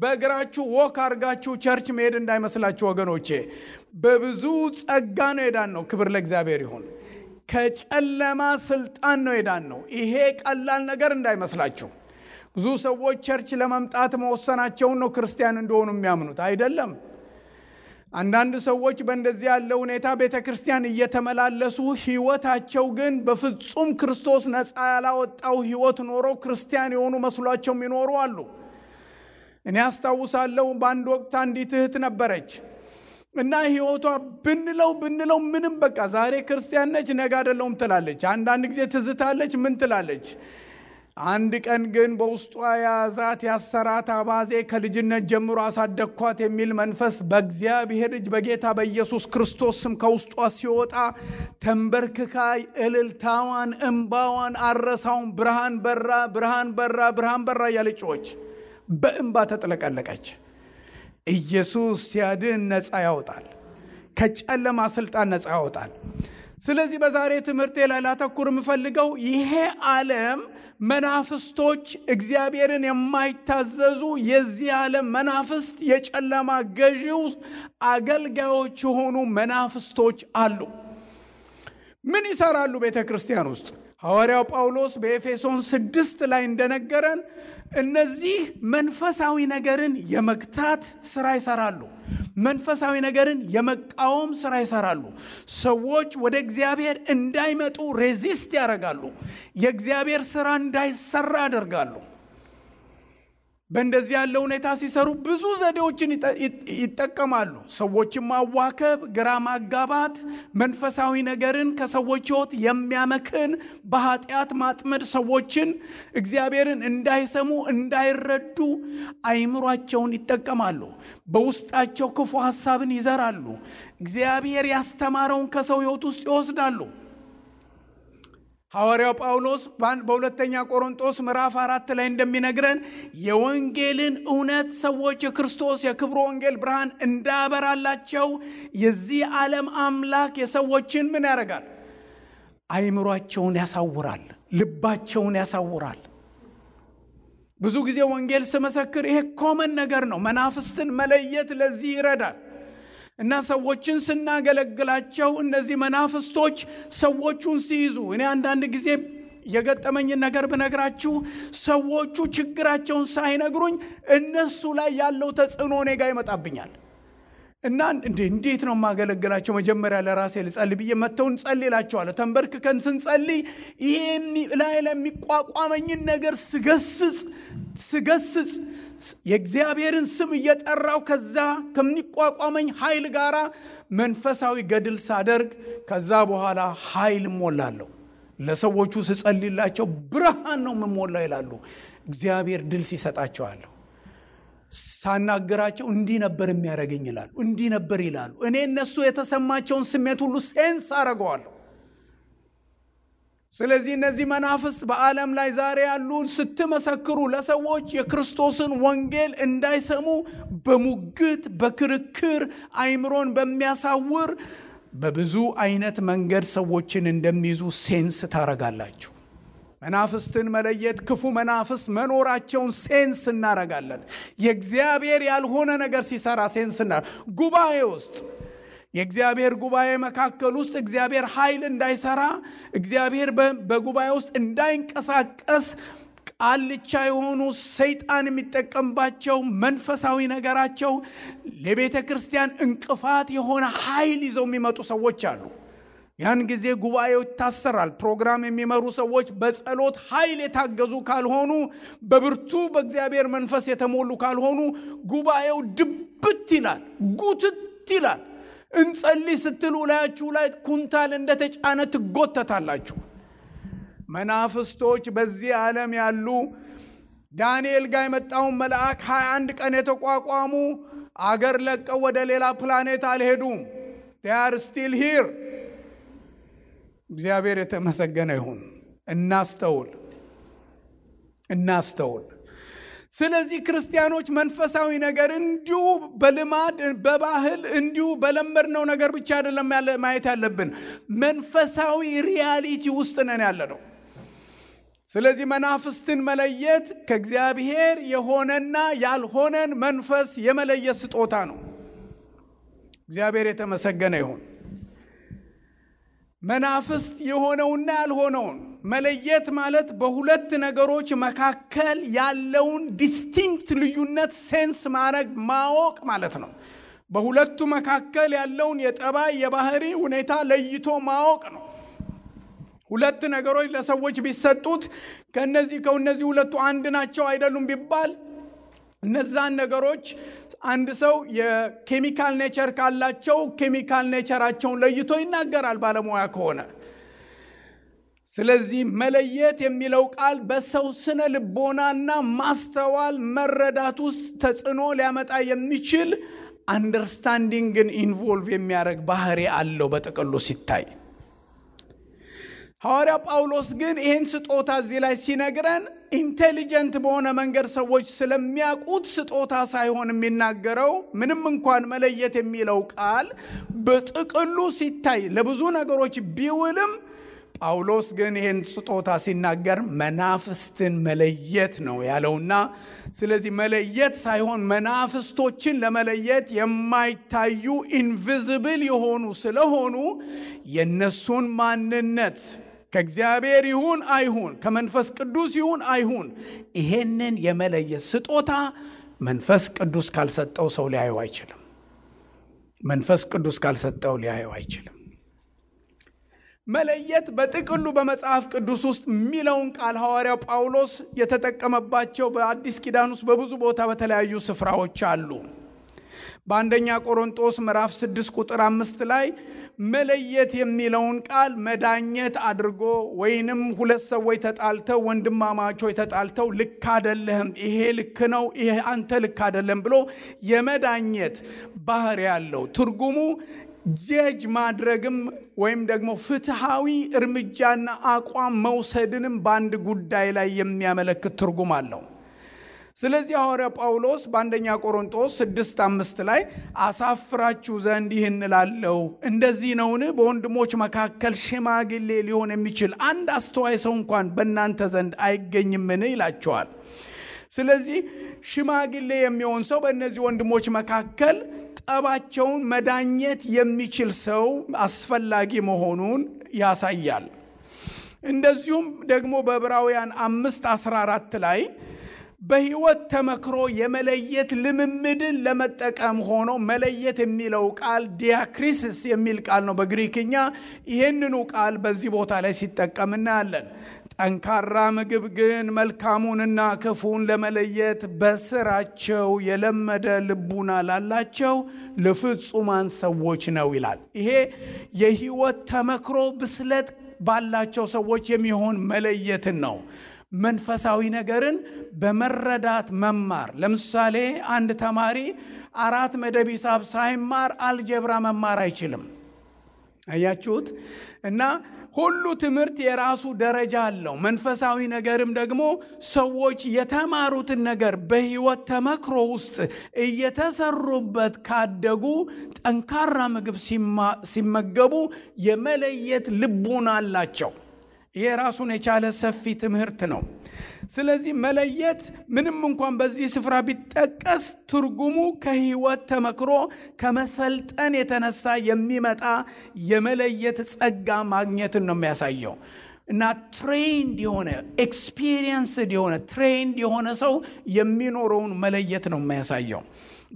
በእግራችሁ ወክ አርጋችሁ ቸርች መሄድ እንዳይመስላችሁ ወገኖቼ፣ በብዙ ጸጋ ነው የዳን ነው። ክብር ለእግዚአብሔር ይሁን። ከጨለማ ስልጣን ነው የዳን ነው። ይሄ ቀላል ነገር እንዳይመስላችሁ። ብዙ ሰዎች ቸርች ለመምጣት መወሰናቸውን ነው ክርስቲያን እንደሆኑ የሚያምኑት። አይደለም። አንዳንድ ሰዎች በእንደዚህ ያለ ሁኔታ ቤተክርስቲያን እየተመላለሱ ህይወታቸው ግን በፍጹም ክርስቶስ ነፃ ያላወጣው ህይወት ኖሮ ክርስቲያን የሆኑ መስሏቸው የሚኖሩ አሉ። እኔ አስታውሳለሁ በአንድ ወቅት አንዲት እህት ነበረች እና ህይወቷ ብንለው ምንም በቃ ዛሬ ክርስቲያን ነች ነገ አይደለም ትላለች። አንዳንድ ጊዜ ትዝታለች ምን ትላለች። አንድ ቀን ግን በውስጧ ያዛት ያሰራት አባዜ ከልጅነት ጀምሮ አሳደግኳት የሚል መንፈስ በእግዚአብሔር እጅ በጌታ በኢየሱስ ክርስቶስ ስም ከውስጧ ሲወጣ ተንበርክካ እልልታዋን እንባዋን አረሳውን ብርሃን በራ ብርሃን በራ ብርሃን በራ ያለችዎች በእንባ ተጥለቀለቀች። ኢየሱስ ሲያድን ነፃ ያወጣል። ከጨለማ ስልጣን ነፃ ያወጣል። ስለዚህ በዛሬ ትምህርቴ ላይ ላተኩር የምፈልገው ይሄ ዓለም መናፍስቶች እግዚአብሔርን የማይታዘዙ የዚህ ዓለም መናፍስት የጨለማ ገዢው አገልጋዮች የሆኑ መናፍስቶች አሉ። ምን ይሰራሉ ቤተክርስቲያን ውስጥ? ሐዋርያው ጳውሎስ በኤፌሶን 6 ላይ እንደነገረን እነዚህ መንፈሳዊ ነገርን የመግታት ስራ ይሰራሉ። መንፈሳዊ ነገርን የመቃወም ስራ ይሰራሉ። ሰዎች ወደ እግዚአብሔር እንዳይመጡ ሬዚስት ያደርጋሉ። የእግዚአብሔር ስራ እንዳይሰራ ያደርጋሉ። በእንደዚህ ያለ ሁኔታ ሲሰሩ ብዙ ዘዴዎችን ይጠቀማሉ። ሰዎችን ማዋከብ፣ ግራ ማጋባት፣ መንፈሳዊ ነገርን ከሰዎች ሕይወት የሚያመክን በኃጢአት ማጥመድ፣ ሰዎችን እግዚአብሔርን እንዳይሰሙ እንዳይረዱ አይምሯቸውን ይጠቀማሉ። በውስጣቸው ክፉ ሐሳብን ይዘራሉ። እግዚአብሔር ያስተማረውን ከሰው ሕይወት ውስጥ ይወስዳሉ። ሐዋርያው ጳውሎስ በሁለተኛ ቆሮንቶስ ምዕራፍ 4 ላይ እንደሚነግረን የወንጌልን እውነት ሰዎች የክርስቶስ የክብሩ ወንጌል ብርሃን እንዳበራላቸው የዚህ ዓለም አምላክ የሰዎችን ምን ያደርጋል? አይምሯቸውን ያሳውራል፣ ልባቸውን ያሳውራል። ብዙ ጊዜ ወንጌል ስመሰክር ይሄ ኮመን ነገር ነው። መናፍስትን መለየት ለዚህ ይረዳል። እና ሰዎችን ስናገለግላቸው እነዚህ መናፍስቶች ሰዎቹን ሲይዙ እኔ አንዳንድ ጊዜ የገጠመኝን ነገር ብነግራችሁ ሰዎቹ ችግራቸውን ሳይነግሩኝ እነሱ ላይ ያለው ተጽዕኖ እኔ ጋር ይመጣብኛል። እና እንዴት ነው ማገለግላቸው? መጀመሪያ ለራሴ ልጸልይ ብዬ መተውን ጸልይላቸዋለሁ። ተንበርክከን ስንጸልይ ይሄን ላይ ለሚቋቋመኝን ነገር ስገስጽ የእግዚአብሔርን ስም እየጠራው ከዛ ከሚቋቋመኝ ኃይል ጋራ መንፈሳዊ ገድል ሳደርግ ከዛ በኋላ ኃይል ሞላለሁ። ለሰዎቹ ስጸልይላቸው ብርሃን ነው የምሞላው ይላሉ። እግዚአብሔር ድል ሲሰጣቸዋለሁ። ሳናገራቸው እንዲህ ነበር የሚያደርገኝ ይላሉ፣ እንዲህ ነበር ይላሉ። እኔ እነሱ የተሰማቸውን ስሜት ሁሉ ሴንስ አደርገዋለሁ። ስለዚህ እነዚህ መናፍስት በዓለም ላይ ዛሬ ያሉ ስትመሰክሩ ለሰዎች የክርስቶስን ወንጌል እንዳይሰሙ በሙግት በክርክር አይምሮን በሚያሳውር በብዙ አይነት መንገድ ሰዎችን እንደሚይዙ ሴንስ ታረጋላችሁ። መናፍስትን መለየት ክፉ መናፍስት መኖራቸውን ሴንስ እናረጋለን። የእግዚአብሔር ያልሆነ ነገር ሲሰራ ሴንስ ጉባኤ ውስጥ የእግዚአብሔር ጉባኤ መካከል ውስጥ እግዚአብሔር ኃይል እንዳይሰራ እግዚአብሔር በጉባኤ ውስጥ እንዳይንቀሳቀስ ቃልቻ የሆኑ ሰይጣን የሚጠቀምባቸው መንፈሳዊ ነገራቸው ለቤተ ክርስቲያን እንቅፋት የሆነ ኃይል ይዘው የሚመጡ ሰዎች አሉ። ያን ጊዜ ጉባኤው ይታሰራል። ፕሮግራም የሚመሩ ሰዎች በጸሎት ኃይል የታገዙ ካልሆኑ፣ በብርቱ በእግዚአብሔር መንፈስ የተሞሉ ካልሆኑ ጉባኤው ድብት ይላል፣ ጉትት ይላል። እንጸልይ ስትሉ ላያችሁ ላይ ኩንታል እንደተጫነ ትጎተታላችሁ። መናፍስቶች በዚህ ዓለም ያሉ ዳንኤል ጋር የመጣውን መልአክ 21 ቀን የተቋቋሙ አገር ለቀው ወደ ሌላ ፕላኔት አልሄዱም። they are still here። እግዚአብሔር የተመሰገነ ይሁን። እናስተውል። ስለዚህ ክርስቲያኖች መንፈሳዊ ነገር እንዲሁ በልማድ በባህል እንዲሁ በለመድነው ነገር ብቻ አይደለም ማየት ያለብን፣ መንፈሳዊ ሪያሊቲ ውስጥ ነን ያለነው። ስለዚህ መናፍስትን መለየት ከእግዚአብሔር የሆነና ያልሆነን መንፈስ የመለየት ስጦታ ነው። እግዚአብሔር የተመሰገነ ይሁን። መናፍስት የሆነውና ያልሆነውን መለየት ማለት በሁለት ነገሮች መካከል ያለውን ዲስቲንክት ልዩነት ሴንስ ማወቅ ማለት ነው። በሁለቱ መካከል ያለውን የጠባይ የባህሪ ሁኔታ ለይቶ ማወቅ ነው። ሁለት ነገሮች ለሰዎች ቢሰጡት ከነዚህ ሁለቱ አንድ ናቸው አይደሉም ቢባል እነዛን ነገሮች አንድ ሰው የኬሚካል ኔቸር ካላቸው ኬሚካል ኔቸራቸውን ለይቶ ይናገራል ባለሙያ ከሆነ። ስለዚህ መለየት የሚለው ቃል በሰው ስነ ልቦናና ማስተዋል መረዳት ውስጥ ተጽዕኖ ሊያመጣ የሚችል አንደርስታንዲንግን ኢንቮልቭ የሚያደርግ ባህሪ አለው በጥቅሉ ሲታይ። ሐዋርያ ጳውሎስ ግን ይህን ስጦታ እዚህ ላይ ሲነግረን ኢንቴሊጀንት በሆነ መንገድ ሰዎች ስለሚያውቁት ስጦታ ሳይሆን የሚናገረው፣ ምንም እንኳን መለየት የሚለው ቃል በጥቅሉ ሲታይ ለብዙ ነገሮች ቢውልም ጳውሎስ ግን ይህን ስጦታ ሲናገር መናፍስትን መለየት ነው ያለውና፣ ስለዚህ መለየት ሳይሆን መናፍስቶችን ለመለየት የማይታዩ ኢንቪዚብል የሆኑ ስለሆኑ የነሱን ማንነት ከእግዚአብሔር ይሁን አይሁን ከመንፈስ ቅዱስ ይሁን አይሁን ይሄንን የመለየት ስጦታ መንፈስ ቅዱስ ካልሰጠው ሰው ሊያየው አይችልም። መንፈስ ቅዱስ ካልሰጠው ሊያየው አይችልም። መለየት በጥቅሉ በመጽሐፍ ቅዱስ ውስጥ የሚለውን ቃል ሐዋርያው ጳውሎስ የተጠቀመባቸው በአዲስ ኪዳን ውስጥ በብዙ ቦታ በተለያዩ ስፍራዎች አሉ። በአንደኛ ቆሮንቶስ ምዕራፍ 6 ቁጥር 5 ላይ መለየት የሚለውን ቃል መዳኘት አድርጎ ወይንም ሁለት ሰዎች ተጣልተው ወንድማማቾች ተጣልተው ልክ አይደለም ይሄ ልክ ነው ይሄ አንተ ልክ አይደለም ብሎ የመዳኘት ባህሪ ያለው ትርጉሙ ጀጅ ማድረግም ወይም ደግሞ ፍትሃዊ እርምጃና አቋም መውሰድንም በአንድ ጉዳይ ላይ የሚያመለክት ትርጉም አለው። ስለዚህ ሐዋርያ ጳውሎስ በአንደኛ ቆሮንቶስ 6:5 ላይ አሳፍራችሁ ዘንድ ይህን እላለሁ፣ እንደዚህ ነውን? በወንድሞች መካከል ሽማግሌ ሊሆን የሚችል አንድ አስተዋይ ሰው እንኳን በእናንተ ዘንድ አይገኝምን? ይላቸዋል። ስለዚህ ሽማግሌ የሚሆን ሰው በእነዚህ ወንድሞች መካከል ጠባቸውን መዳኘት የሚችል ሰው አስፈላጊ መሆኑን ያሳያል። እንደዚሁም ደግሞ በዕብራውያን 5:14 ላይ በሕይወት ተመክሮ የመለየት ልምምድን ለመጠቀም ሆኖ መለየት የሚለው ቃል ዲያክሪሲስ የሚል ቃል ነው በግሪክኛ። ይህንኑ ቃል በዚህ ቦታ ላይ ሲጠቀም እናያለን። ጠንካራ ምግብ ግን መልካሙንና ክፉን ለመለየት በስራቸው የለመደ ልቡና ላላቸው ለፍጹማን ሰዎች ነው ይላል። ይሄ የሕይወት ተመክሮ ብስለት ባላቸው ሰዎች የሚሆን መለየትን ነው። መንፈሳዊ ነገርን በመረዳት መማር። ለምሳሌ አንድ ተማሪ 4 መደብ ሂሳብ ሳይማር አልጀብራ መማር አይችልም። አያችሁት? እና ሁሉ ትምህርት የራሱ ደረጃ አለው። መንፈሳዊ ነገርም ደግሞ ሰዎች የተማሩትን ነገር በሕይወት ተመክሮ ውስጥ እየተሰሩበት ካደጉ ጠንካራ ምግብ ሲመገቡ የመለየት ልቡና አላቸው። ይሄ ራሱን የቻለ ሰፊ ትምህርት ነው። ስለዚህ መለየት ምንም እንኳን በዚህ ስፍራ ቢጠቀስ ትርጉሙ ከሕይወት ተመክሮ ከመሰልጠን የተነሳ የሚመጣ የመለየት ጸጋ ማግኘትን ነው የሚያሳየው። እና ትሬንድ የሆነ ኤክስፒሪየንስድ የሆነ ትሬንድ የሆነ ሰው የሚኖረውን መለየት ነው የሚያሳየው።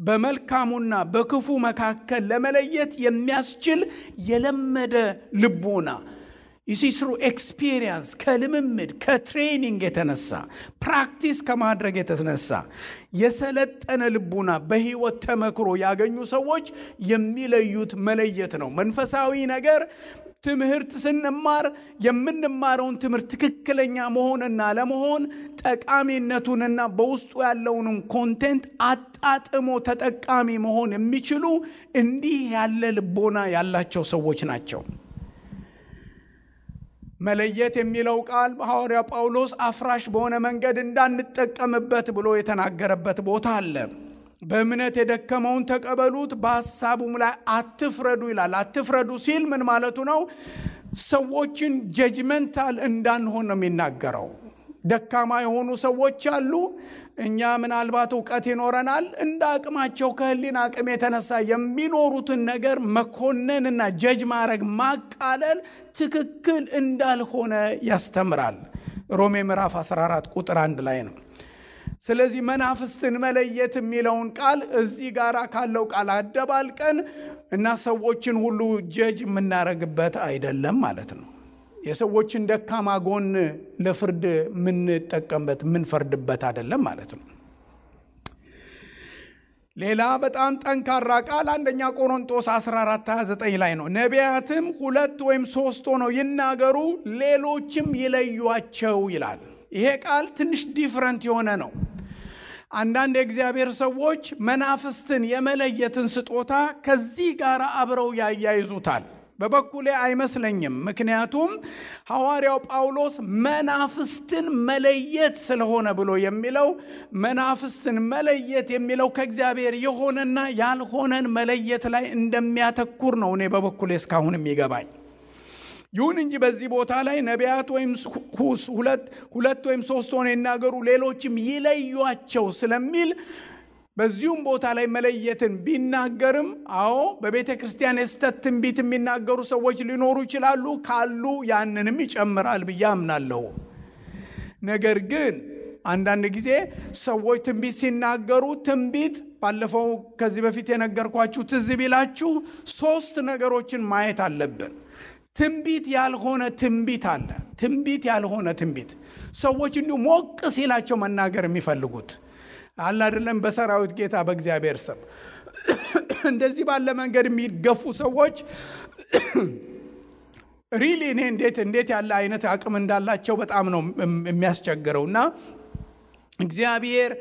በመልካሙና በክፉ መካከል ለመለየት የሚያስችል የለመደ ልቦና ይሲስሩ ኤክስፒሪየንስ ከልምምድ ከትሬኒንግ የተነሳ ፕራክቲስ ከማድረግ የተነሳ የሰለጠነ ልቦና በህይወት ተመክሮ ያገኙ ሰዎች የሚለዩት መለየት ነው። መንፈሳዊ ነገር ትምህርት ስንማር የምንማረውን ትምህርት ትክክለኛ መሆንና ለመሆን ጠቃሚነቱንና በውስጡ ያለውን ኮንቴንት አጣጥሞ ተጠቃሚ መሆን የሚችሉ እንዲህ ያለ ልቦና ያላቸው ሰዎች ናቸው። መለየት የሚለው ቃል ሐዋርያ ጳውሎስ አፍራሽ በሆነ መንገድ እንዳንጠቀምበት ብሎ የተናገረበት ቦታ አለ። በእምነት የደከመውን ተቀበሉት፣ በሐሳቡም ላይ አትፍረዱ ይላል። አትፍረዱ ሲል ምን ማለቱ ነው? ሰዎችን ጀጅመንታል እንዳንሆን ነው የሚናገረው። ደካማ የሆኑ ሰዎች አሉ። እኛ ምናልባት ዕውቀት ይኖረናል፣ እንደ አቅማቸው ከህሊና አቅም የተነሳ የሚኖሩትን ነገር መኮነንና ጀጅ ማድረግ ማቃለል ትክክል እንዳልሆነ ያስተምራል። ሮሜ ምዕራፍ 14 ቁጥር 1 ላይ ነው። ስለዚህ መናፍስትን መለየት የሚለውን ቃል እዚህ ጋር ካለው ቃል አደባልቀን እና ሰዎችን ሁሉ ጀጅ የምናረግበት አይደለም ማለት ነው። የሰዎችን ደካማ ጎን ለፍርድ የምንጠቀምበት የምንፈርድበት አይደለም ማለት ነው። ሌላ በጣም ጠንካራ ቃል አንደኛ ቆሮንቶስ 14:29 ላይ ነው። ነቢያትም 2 ወይም 3 ሆነው ይናገሩ፣ ሌሎችም ይለዩአቸው ይላል። ይሄ ቃል ትንሽ ዲፍረንት የሆነ ነው። አንዳንድ የእግዚአብሔር ሰዎች መናፍስትን የመለየትን ስጦታ ከዚህ ጋር አብረው ያያይዙታል። በበኩሌ አይመስለኝም። ምክንያቱም ሐዋርያው ጳውሎስ መናፍስትን መለየት ስለሆነ ብሎ የሚለው መናፍስትን መለየት የሚለው ከእግዚአብሔር የሆነና ያልሆነን መለየት ላይ እንደሚያተኩር ነው እኔ በበኩሌ እስካሁን የሚገባኝ። ይሁን እንጂ በዚህ ቦታ ላይ ነቢያት ወይም 2 ወይም 3 ሆነው ይናገሩ ሌሎችም ይለዩአቸው ስለሚል በዚሁም ቦታ ላይ መለየትን ቢናገርም አዎ በቤተ ክርስቲያን የስተት ትንቢት የሚናገሩ ሰዎች ሊኖሩ ይችላሉ። ካሉ ያንንም ይጨምራል ብዬ አምናለሁ። ነገር ግን አንዳንድ ጊዜ ሰዎች ትንቢት ሲናገሩ ትንቢት ባለፈው ከዚህ በፊት የነገርኳችሁ ትዝ ቢላችሁ 3 ነገሮችን ማየት አለብን። ትንቢት ያልሆነ ትንቢት አለ። ትንቢት ያልሆነ ትንቢት ሰዎች እንዲሁ ሞቅ ሲላቸው መናገር የሚፈልጉት አለ አይደለም። በሰራዊት ጌታ በእግዚአብሔር ስም እንደዚህ ባለ መንገድ የሚገፉ ሰዎች ሪሊ እኔ እንዴት ያለ አይነት አቅም እንዳላቸው በጣም ነው የሚያስቸግረውና እግዚአብሔር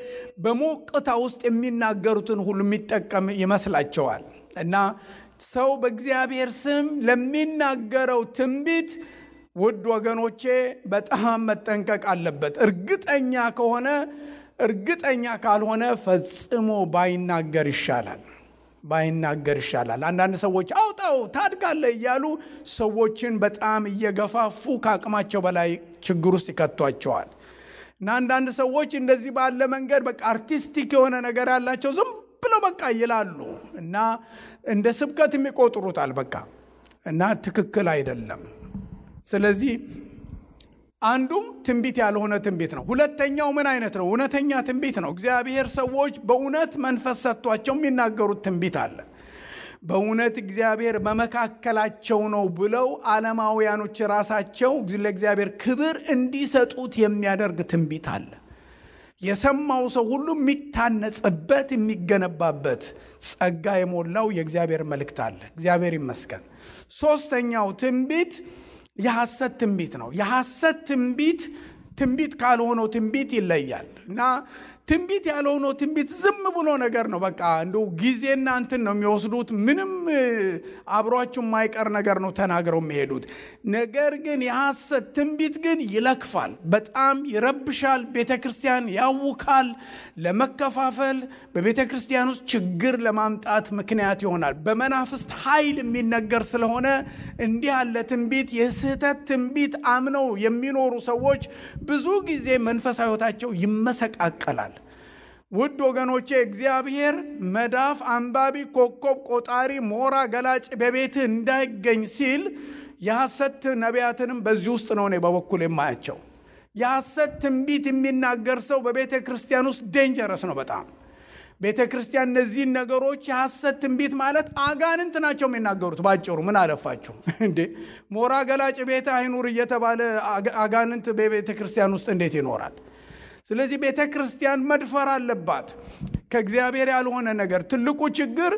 በሞቅታ ውስጥ የሚናገሩትን ሁሉ የሚጠቀም ይመስላቸዋል። እና ሰው በእግዚአብሔር ስም ለሚናገረው ትንቢት ውድ ወገኖቼ በጣም መጠንቀቅ አለበት። እርግጠኛ ካልሆነ ፈጽሞ ባይናገር ይሻላል። አንዳንድ ሰዎች አውጣው ታድጋለህ እያሉ ሰዎችን በጣም እየገፋፉ ከአቅማቸው በላይ ችግር ውስጥ ይከቷቸዋል። እና አንዳንድ ሰዎች እንደዚህ ባለ መንገድ በቃ አርቲስቲክ የሆነ ነገር ያላቸው ዝም ብለው በቃ ይላሉ እና እንደ ስብከት የሚቆጥሩታል በቃ እና ትክክል አይደለም። ስለዚህ አንዱም ትንቢት ያልሆነ ትንቢት ነው። ሁለተኛው ምን አይነት ነው? እውነተኛ ትንቢት ነው። እግዚአብሔር ሰዎች በእውነት መንፈስ ሰጥቷቸው የሚናገሩት ትንቢት አለ። በእውነት እግዚአብሔር በመካከላቸው ነው ብለው ዓለማውያኖች ራሳቸው ለእግዚአብሔር ክብር እንዲሰጡት የሚያደርግ ትንቢት አለ። የሰማው ሰው ሁሉ የሚታነጽበት የሚገነባበት ጸጋ የሞላው የእግዚአብሔር መልእክት አለ። እግዚአብሔር ይመስገን። ሶስተኛው ትንቢት የሐሰት ትንቢት ነው። የሐሰት ትንቢት ካልሆነው ትንቢት ይለያል እና ትንቢት ያልሆነው ትንቢት ዝም ብሎ ነገር ነው። በቃ እንደው ጊዜና እንትን ነው የሚወስዱት። ምንም አብሯችሁ የማይቀር ነገር ነው ተናግረው የሚሄዱት። ነገር ግን የሐሰት ትንቢት ግን ይለክፋል፣ በጣም ይረብሻል፣ ቤተክርስቲያን ያውካል፣ ለመከፋፈል በቤተክርስቲያን ውስጥ ችግር ለማምጣት ምክንያት ይሆናል። በመናፍስት ኃይል የሚነገር ስለሆነ እንዲህ ያለ ትንቢት የስህተት ትንቢት አምነው የሚኖሩ ሰዎች ብዙ ጊዜ መንፈሳዊ ሕይወታቸው ይመሰቃቀላል። ውድ ወገኖቼ እግዚአብሔር መዳፍ አንባቢ፣ ኮከብ ቆጣሪ፣ ሞራ ገላጭ በቤት እንዳይገኝ ሲል የሐሰት ነቢያትንም በዚህ ውስጥ ነው እኔ በበኩል የማያቸው። የሐሰት ትንቢት የሚናገር ሰው በቤተ ክርስቲያን ውስጥ ዴንጀረስ ነው በጣም። ቤተ ክርስቲያን እነዚህን ነገሮች የሐሰት ትንቢት ማለት አጋንንት ናቸው የሚናገሩት። ባጭሩ ምን አለፋችሁ እንዴ ሞራ ገላጭ ቤት አይኑር እየተባለ አጋንንት በቤተ ክርስቲያን ውስጥ እንዴት ይኖራል? ስለዚህ ቤተ ክርስቲያን መድፈር አለባት ከእግዚአብሔር ያልሆነ ነገር። ትልቁ ችግር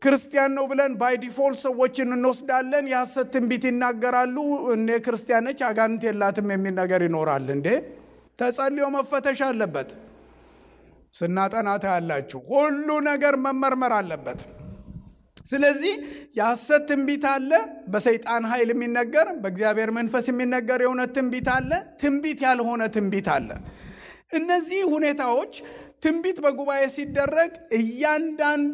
ክርስቲያን ነው ብለን ባይ ዲፎልት ሰዎችን እንወስዳለን። የሐሰት ትንቢት ይናገራሉ። እኔ ክርስቲያን ነች አጋንንት የላትም የሚል ነገር ይኖራል። እንዴ ተጸልዮ መፈተሽ አለበት። ስናጠናታ ያላችሁ ሁሉ ነገር መመርመር አለበት። ስለዚህ የሐሰት ትንቢት አለ፣ በሰይጣን ኃይል የሚነገር፣ በእግዚአብሔር መንፈስ የሚነገር የእውነት ትንቢት አለ፣ ትንቢት ያልሆነ ትንቢት አለ። እነዚህ ሁኔታዎች ትንቢት በጉባኤ ሲደረግ እያንዳንዱ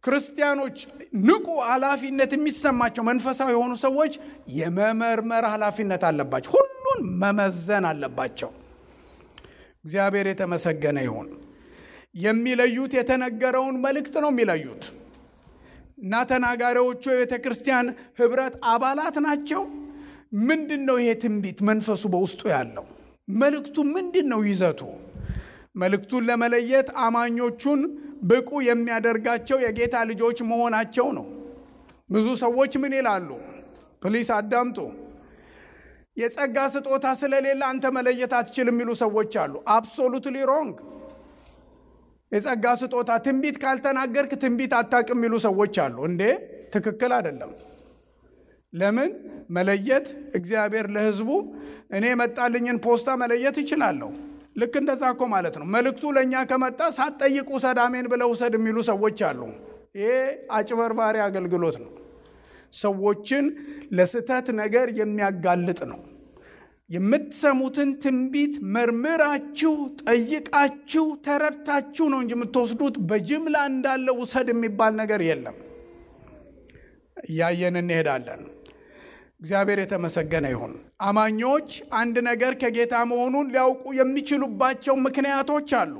ክርስቲያኖች ንቁ ኃላፊነት የሚሰማቸው መንፈሳዊ የሆኑ ሰዎች የመመርመር ኃላፊነት አለባቸው። ሁሉን መመዘን አለባቸው። እግዚአብሔር የተመሰገነ ይሁን። የሚለዩት የተነገረውን መልእክት ነው የሚለዩት እና ተናጋሪዎቹ የቤተ ክርስቲያን ህብረት አባላት ናቸው። ምንድነው ይሄ ትንቢት መንፈሱ በውስጡ ያለው? መልእክቱ ምንድነው ይዘቱ? መልእክቱን ለመለየት አማኞቹን ብቁ የሚያደርጋቸው የጌታ ልጆች መሆናቸው ነው። ብዙ ሰዎች ምን ይላሉ? ፕሊስ አዳምጡ። የጸጋ ስጦታ ስለሌለ አንተ መለየት አትችልም የሚሉ ሰዎች አሉ። አብሶሉትሊ ሮንግ። የጸጋ ስጦታ ትንቢት ካልተናገርክ ትንቢት አታውቅም የሚሉ ሰዎች አሉ። እንዴ ትክክል አይደለም። ለምን መለየት? እግዚአብሔር ለህዝቡ እኔ መጣልኝን ፖስታ መለየት ይችላለሁ። ልክ እንደዛ እኮ ማለት ነው። መልእክቱ ለኛ ከመጣ ሳትጠይቁ ውሰድ አሜን ብለው ውሰድ የሚሉ ሰዎች አሉ። ይሄ አጭበርባሪ አገልግሎት ነው። ሰዎችን ለስተት ነገር የሚያጋልጥ ነው። የምትሰሙትን ትንቢት መርምራችሁ ጠይቃችሁ ተረድታችሁ ነው እንጂ የምትወስዱት በጅምላ እንዳለ ውሰድ የሚባል ነገር የለም። ያየን እንሄዳለን። እግዚአብሔር የተመሰገነ ይሁን። አማኞች አንድ ነገር ከጌታ መሆኑን ሊያውቁ የሚችሉባቸው ምክንያቶች አሉ።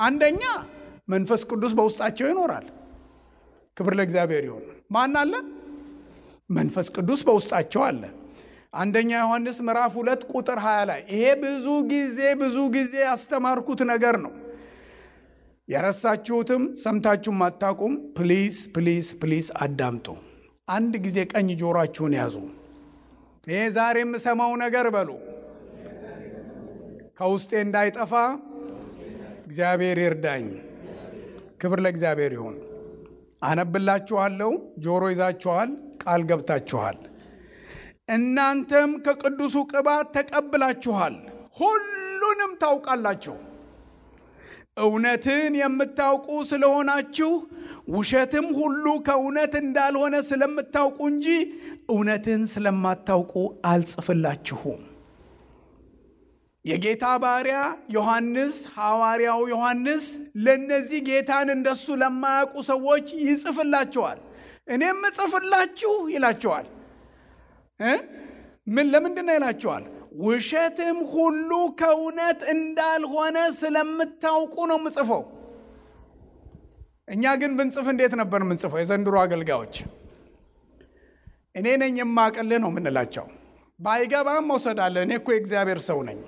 አንደኛ መንፈስ ቅዱስ በውስጣቸው ይኖራል። ክብር ለእግዚአብሔር ይሁን። ማን አለ? መንፈስ ቅዱስ በውስጣቸው አለ። አንደኛ ዮሐንስ ምዕራፍ 2 ቁጥር 20 ላይ ይሄ ብዙ ጊዜ ያስተማርኩት ነገር ነው። የረሳችሁትም ሰምታችሁም አታውቁም። ፕሊዝ አዳምጡ። አንድ ጊዜ ቀኝ ጆሮአችሁን ያዙ። ይሄ ዛሬ የምሰማው ነገር በሉ ከውስጤ እንዳይጠፋ እግዚአብሔር ይርዳኝ። ክብር ለእግዚአብሔር ይሁን። አነብላችኋለሁ። ጆሮ ይዛችኋል፣ ቃል ገብታችኋል። እናንተም ከቅዱሱ ቅባት ተቀብላችኋል፣ ሁሉንም ታውቃላችሁ። እውነትን የምታውቁ ስለሆናችሁ ውሸትም ሁሉ ከእውነት እንዳልሆነ ስለምታውቁ እንጂ እውነትን ስለማታውቁ አልጽፍላችሁም። የጌታ ባሪያ ዮሐንስ፣ ሐዋርያው ዮሐንስ ለነዚህ ጌታን እንደሱ ለማያውቁ ሰዎች ይጽፍላቸዋል። እኔም እጽፍላችሁ ይላቸዋል። ለምንድን ነው ይላቸዋል? ውሸትም ሁሉ ከእውነት እንዳልሆነ ስለምታውቁ ነው ምጽፈው። እኛ ግን ብንጽፍ እንዴት ነበር ምንጽፈው? የዘንድሮ አገልጋዮች እኔ ነኝ የማቀልህ ነው ምንላቸው። ባይገባም መውሰዳለ። እኔ እኮ የእግዚአብሔር ሰው ነኝ፣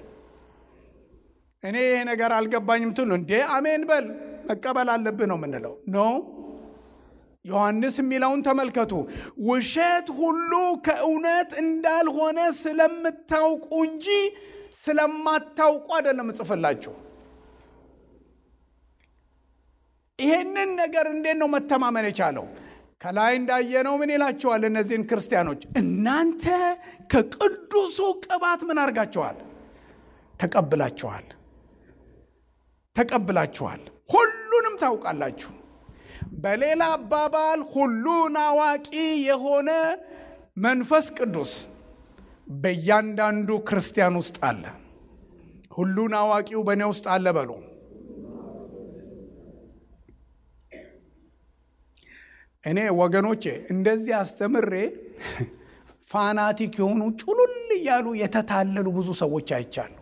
እኔ ይሄ ነገር አልገባኝም ትሉ እንዴ አሜን በል መቀበል አለብህ ነው ምንለው። ኖ ዮሐንስ የሚለውን ተመልከቱ። ውሸት ሁሉ ከእውነት እንዳልሆነ ስለምታውቁ እንጂ ስለማታውቁ አይደለም እጽፍላችሁ። ይሄንን ነገር እንዴት ነው መተማመን የቻለው? ከላይ እንዳየነው ምን ይላቸዋል እነዚህን ክርስቲያኖች? እናንተ ከቅዱሱ ቅባት ምን አርጋችኋል? ተቀብላችኋል፣ ሁሉንም ታውቃላችሁ። በሌላ አባባል ሁሉን አዋቂ የሆነ መንፈስ ቅዱስ በእያንዳንዱ ክርስቲያን ውስጥ አለ። ሁሉን አዋቂው በእኔ ውስጥ አለ በሉ። እኔ ወገኖቼ እንደዚህ አስተምሬ ፋናቲክ የሆኑ ጩሉል እያሉ የተታለሉ ብዙ ሰዎች አይቻሉ።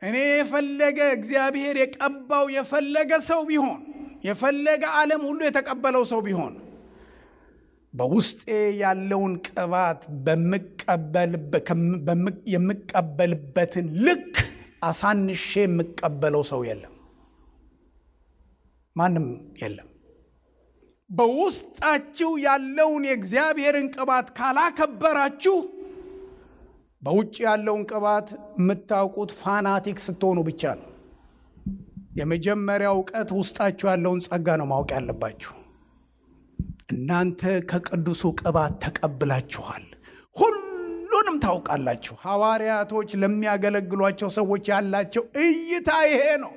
እኔ የፈለገ እግዚአብሔር የቀባው የፈለገ ሰው ቢሆን፣ የፈለገ ዓለም ሁሉ የተቀበለው ሰው ቢሆን በውስጤ ያለውን ቅባት የምቀበልበትን ልክ አሳንሼ የምቀበለው ሰው የለም፣ ማንም የለም። በውስጣችሁ ያለውን የእግዚአብሔርን ቅባት ካላከበራችሁ በውጭ ያለውን ቅባት የምታውቁት ፋናቲክ ስትሆኑ ብቻ ነው። የመጀመሪያው ዕውቀት ውስጣችሁ ያለውን ጸጋ ነው ማወቅ ያለባችሁ። እናንተ ከቅዱሱ ቅባት ተቀብላችኋል፣ ሁሉንም ታውቃላችሁ። ሐዋርያቶች ለሚያገለግሏቸው ሰዎች ያላቸው እይታ ይሄ ነው።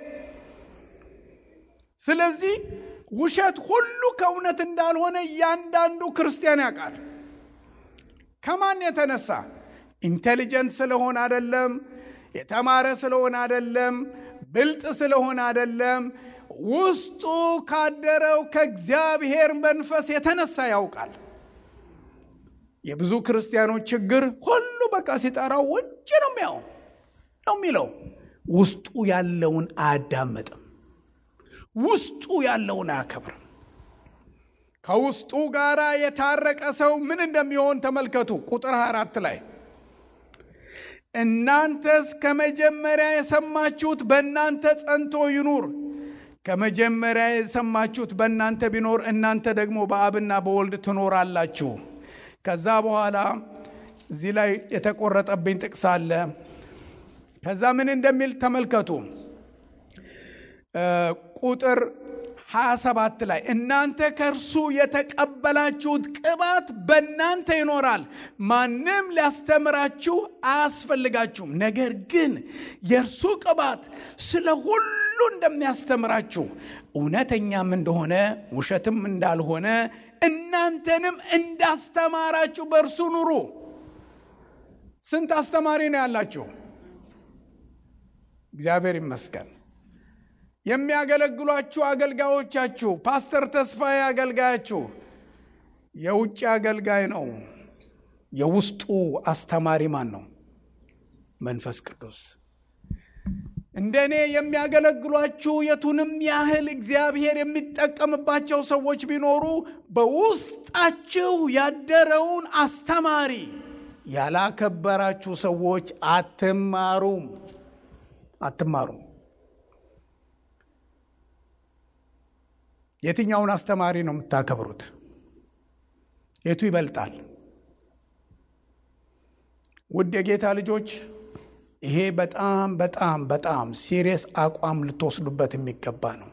ስለዚህ ውሸት ሁሉ ከእውነት እንዳልሆነ እያንዳንዱ ክርስቲያን ያውቃል። ከማን የተነሳ? ኢንቴሊጀንት ስለሆነ አይደለም፣ የተማረ ስለሆነ አይደለም፣ ብልጥ ስለሆነ አይደለም። ውስጡ ካደረው ከእግዚአብሔር መንፈስ የተነሳ ያውቃል። የብዙ ክርስቲያኖች ችግር ሁሉ በቃ ሲጠራው ውጭ ነው የሚለው፣ ውስጡ ያለውን አያዳምጥም፣ ውስጡ ያለውን አያከብርም። ከውስጡ ጋራ የታረቀ ሰው ምን እንደሚሆን ተመልከቱ። ቁጥር 24 ላይ እናንተስ ከመጀመሪያ የሰማችሁት በእናንተ ጸንቶ ይኑር። ከመጀመሪያ የሰማችሁት በእናንተ ቢኖር እናንተ ደግሞ በአብና በወልድ ትኖራላችሁ። ከዛ በኋላ እዚህ ላይ የተቆረጠብኝ ጥቅስ አለ። ከዛ ምን እንደሚል ተመልከቱ። ቁጥር 27 ላይ እናንተ ከእርሱ የተቀበላችሁት ቅባት በእናንተ ይኖራል፣ ማንም ሊያስተምራችሁ አያስፈልጋችሁም። ነገር ግን የእርሱ ቅባት ስለ ሁሉ እንደሚያስተምራችሁ እውነተኛም እንደሆነ ውሸትም እንዳልሆነ እናንተንም እንዳስተማራችሁ በእርሱ ኑሩ። ስንት አስተማሪ ነው ያላችሁ? እግዚአብሔር ይመስገን። የሚያገለግሏችሁ አገልጋዮቻችሁ፣ ፓስተር ተስፋዬ አገልጋያችሁ የውጭ አገልጋይ ነው። የውስጡ አስተማሪ ማን ነው? መንፈስ ቅዱስ። እንደኔ የሚያገለግሏችሁ የቱንም ያህል እግዚአብሔር የሚጠቀምባቸው ሰዎች ቢኖሩ በውስጣችሁ ያደረውን አስተማሪ ያላከበራችሁ ሰዎች አትማሩም። የትኛውን አስተማሪ ነው የምታከብሩት? የቱ ይበልጣል? ውድ የጌታ ልጆች፣ ይሄ በጣም በጣም በጣም ሲሪየስ አቋም ልትወስዱበት የሚገባ ነው።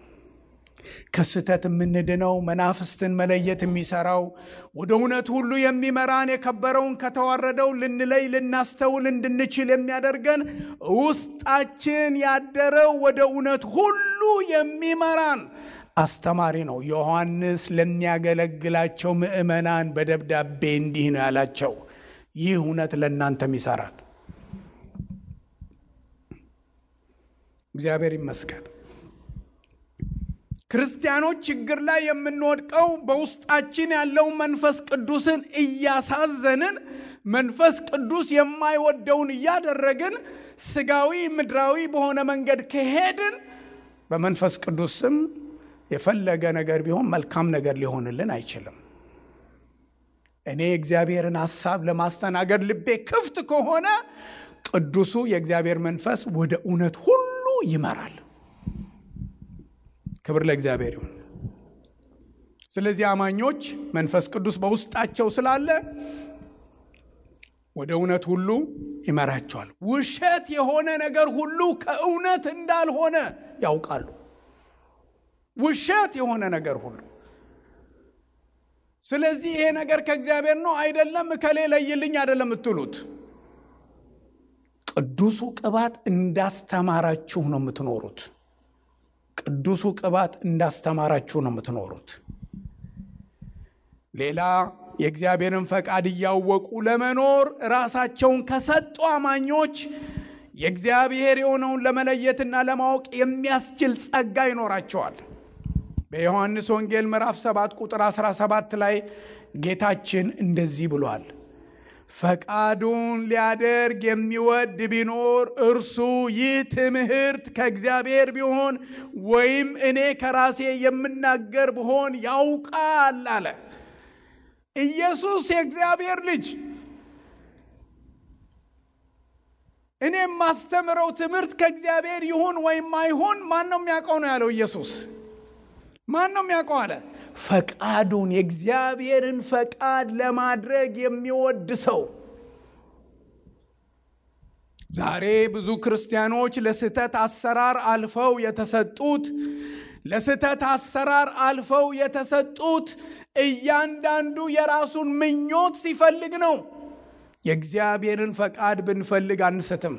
ከስተት የምንድነው መናፍስትን መለየት የሚሰራው ወደ እውነት ሁሉ የሚመራን የከበረውን ከተዋረደው ልንለይ ልናስተውል እንድንችል የሚያደርገን ውስጣችን ያደረው ወደ እውነት ሁሉ የሚመራን አስተማሪ ነው። ዮሐንስ ለሚያገለግላቸው ምእመናን በደብዳቤ እንዲህ ነው ያላቸው፣ ይህ እውነት ለእናንተም ይሰራል። እግዚአብሔር ይመስገን። ክርስቲያኖች ችግር ላይ የምንወድቀው በውስጣችን ያለው መንፈስ ቅዱስን እያሳዘንን መንፈስ ቅዱስ የማይወደውን እያደረግን ስጋዊ ምድራዊ በሆነ መንገድ ከሄድን በመንፈስ ቅዱስ ስም የፈለገ ነገር ቢሆን መልካም ነገር ሊሆንልን አይችልም። እኔ እግዚአብሔርን ሐሳብ ለማስተናገድ ልቤ ክፍት ከሆነ ቅዱሱ የእግዚአብሔር መንፈስ ወደ እውነት ሁሉ ይመራል። ክብር ለእግዚአብሔር ይሁን። ስለዚህ አማኞች መንፈስ ቅዱስ በውስጣቸው ስላለ ወደ እውነት ሁሉ ይመራቸዋል። ውሸት የሆነ ነገር ሁሉ ከእውነት እንዳልሆነ ያውቃሉ። ውሸት የሆነ ነገር ሁሉ። ስለዚህ ይሄ ነገር ከእግዚአብሔር ነው አይደለም እከሌ ለይልኝ አይደለም የምትሉት። ቅዱሱ ቅባት እንዳስተማራችሁ ነው የምትኖሩት። ቅዱሱ ቅባት እንዳስተማራችሁ ነው የምትኖሩት። ሌላ የእግዚአብሔርን ፈቃድ እያወቁ ለመኖር ራሳቸውን ከሰጡ አማኞች የእግዚአብሔር የሆነውን ለመለየትና ለማወቅ የሚያስችል ጸጋ ይኖራቸዋል። በዮሐንስ ወንጌል ምዕራፍ 7 ቁጥር 17 ላይ ጌታችን እንደዚህ ብሏል፣ ፈቃዱን ሊያደርግ የሚወድ ቢኖር እርሱ ይህ ትምህርት ከእግዚአብሔር ቢሆን ወይም እኔ ከራሴ የምናገር ብሆን ያውቃል አለ። ኢየሱስ የእግዚአብሔር ልጅ እኔ ማስተምረው ትምህርት ከእግዚአብሔር ይሁን ወይም አይሁን ማን ነው የሚያውቀው ነው ያለው ኢየሱስ። ማን ነው የሚያውቀው አለ? ፈቃዱን የእግዚአብሔርን ፈቃድ ለማድረግ የሚወድ ሰው። ዛሬ ብዙ ክርስቲያኖች ለስህተት አሰራር አልፈው የተሰጡት እያንዳንዱ የራሱን ምኞት ሲፈልግ ነው። የእግዚአብሔርን ፈቃድ ብንፈልግ አንስትም።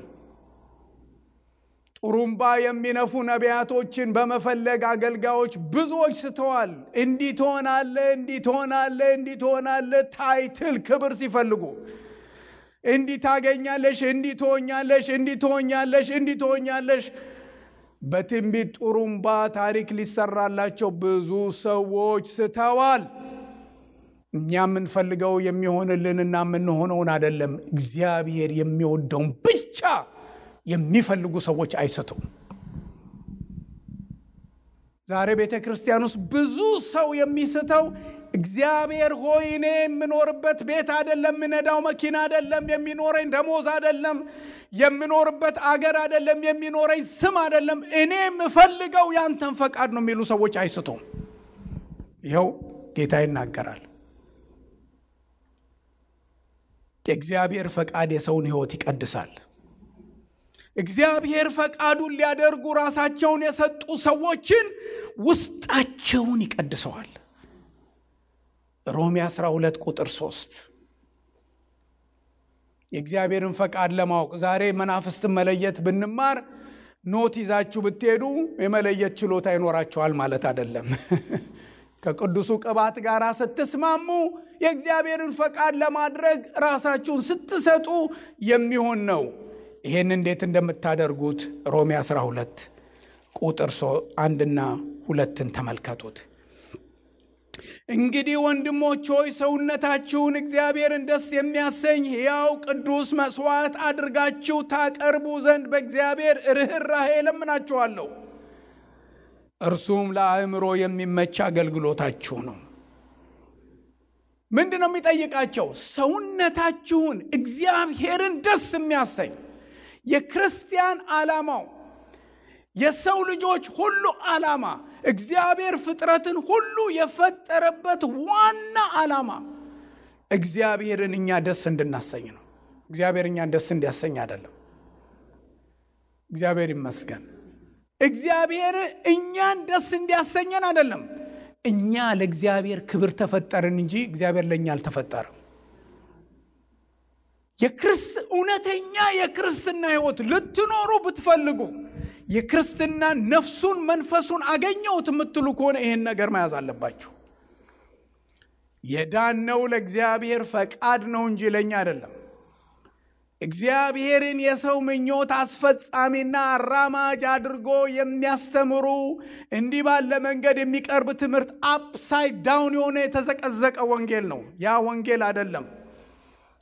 ጡሩምባ የሚነፉ ነቢያቶችን በመፈለግ አገልጋዮች ብዙዎች ስተዋል። እንዲህ ትሆናለህ ታይትል ክብር ሲፈልጉ እንዲህ ታገኛለሽ፣ እንዲህ ትሆኛለሽ። በትንቢት ጡሩምባ ታሪክ ሊሰራላቸው ብዙ ሰዎች ስተዋል። እኛ የምንፈልገው የሚሆንልንና የምንሆነውን አይደለም፣ እግዚአብሔር የሚወደውን ብቻ የሚፈልጉ ሰዎች አይስቱም። ዛሬ ቤተ ክርስቲያን ውስጥ ብዙ ሰው የሚስተው እግዚአብሔር ሆይ እኔ የምኖርበት ቤት አይደለም፣ የምነዳው መኪና አይደለም፣ የሚኖረኝ ደሞዝ አይደለም፣ የምኖርበት አገር አይደለም፣ የሚኖረኝ ስም አይደለም፣ እኔ የምፈልገው ያንተን ፈቃድ ነው የሚሉ ሰዎች አይስቱም። ይኸው ጌታ ይናገራል። የእግዚአብሔር ፈቃድ የሰውን ሕይወት ይቀድሳል። እግዚአብሔር ፈቃዱን ሊያደርጉ ራሳቸውን የሰጡ ሰዎችን ውስጣቸውን ይቀድሰዋል። ሮሜ 12 ቁጥር 3 የእግዚአብሔርን ፈቃድ ለማወቅ ዛሬ መናፍስትን መለየት ብንማር ኖት ይዛችሁ ብትሄዱ የመለየት ችሎታ ይኖራችኋል ማለት አይደለም። ከቅዱሱ ቅባት ጋር ስትስማሙ የእግዚአብሔርን ፈቃድ ለማድረግ ራሳችሁን ስትሰጡ የሚሆን ነው። ይሄን እንዴት እንደምታደርጉት ሮሜ 12 ቁጥር 1 እና 2 ተመልከቱት። እንግዲህ ወንድሞች ሆይ ሰውነታችሁን እግዚአብሔርን ደስ የሚያሰኝ ሕያው ቅዱስ መስዋዕት አድርጋችሁ ታቀርቡ ዘንድ በእግዚአብሔር ርኅራኄ እለምናችኋለሁ። እርሱም ለአእምሮ የሚመች አገልግሎታችሁ ነው። ምንድነው የሚጠይቃቸው? ሰውነታችሁን እግዚአብሔርን ደስ የሚያሰኝ የክርስቲያን ዓላማው የሰው ልጆች ሁሉ ዓላማ እግዚአብሔር ፍጥረትን ሁሉ የፈጠረበት ዋና ዓላማ እግዚአብሔርን እኛ ደስ እንድናሰኝ ነው። እግዚአብሔር እኛን ደስ እንዲያሰኝ አይደለም። እግዚአብሔር ይመስገን። እግዚአብሔር እኛን ደስ እንዲያሰኘን አይደለም። እኛ ለእግዚአብሔር ክብር ተፈጠርን እንጂ እግዚአብሔር ለኛ አልተፈጠረም። እውነተኛ የክርስትና ሕይወት ልትኖሩ ብትፈልጉ የክርስትና ነፍሱን መንፈሱን አገኘሁት የምትሉ ከሆነ ይሄን ነገር መያዝ አለባችሁ። የዳነው ለእግዚአብሔር ፈቃድ ነው እንጂ ለኛ አይደለም። እግዚአብሔርን የሰው ምኞት አስፈጻሚና አራማጅ አድርጎ የሚያስተምሩ እንዲህ ባለ መንገድ የሚቀርብ ትምህርት አፕሳይድ ዳውን የሆነ የተዘቀዘቀ ወንጌል ነው። ያ ወንጌል አይደለም።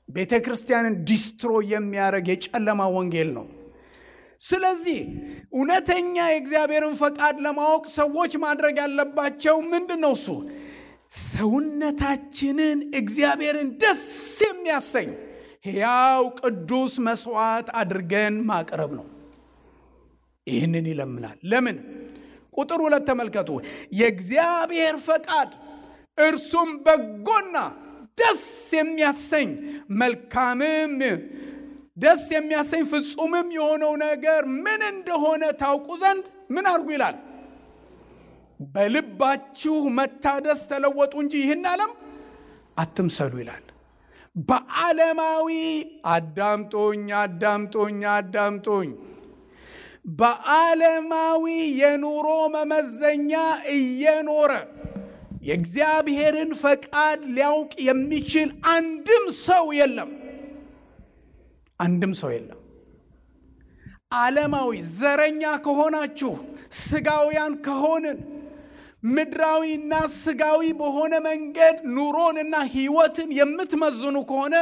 ቤተ ክርስቲያንን ዲስትሮይ የሚያደርግ የጨለማ ወንጌል ነው። ስለዚህ እውነተኛ የእግዚአብሔርን ፈቃድ ለማወቅ ሰዎች ማድረግ ያለባቸው ምንድነው? እሱ ሰውነታችንን እግዚአብሔርን ደስ የሚያሰኝ ሕያው ቅዱስ መስዋዕት አድርገን ማቅረብ ነው። ይህንን ይለምናል። ለምን? ቁጥር 2 ተመልከቱ። የእግዚአብሔር ፈቃድ እርሱም በጎና ደስ የሚያሰኝ መልካምም ደስ የሚያሰኝ ፍጹምም የሆነው ነገር ምን እንደሆነ ታውቁ ዘንድ ምን አድርጉ ይላል? በልባችሁ መታደስ ተለወጡ እንጂ ይህን ዓለም አትምሰሉ ይላል። በዓለማዊ አዳምጦኝ በዓለማዊ የኑሮ መመዘኛ እየኖረ የእግዚአብሔርን ፈቃድ ሊያውቅ የሚችል አንድም ሰው የለም። ዓለማዊ ዘረኛ ከሆናችሁ፣ ስጋውያን ከሆንን፣ ምድራዊና ስጋዊ በሆነ መንገድ ኑሮንና ሕይወትን የምትመዝኑ ከሆነ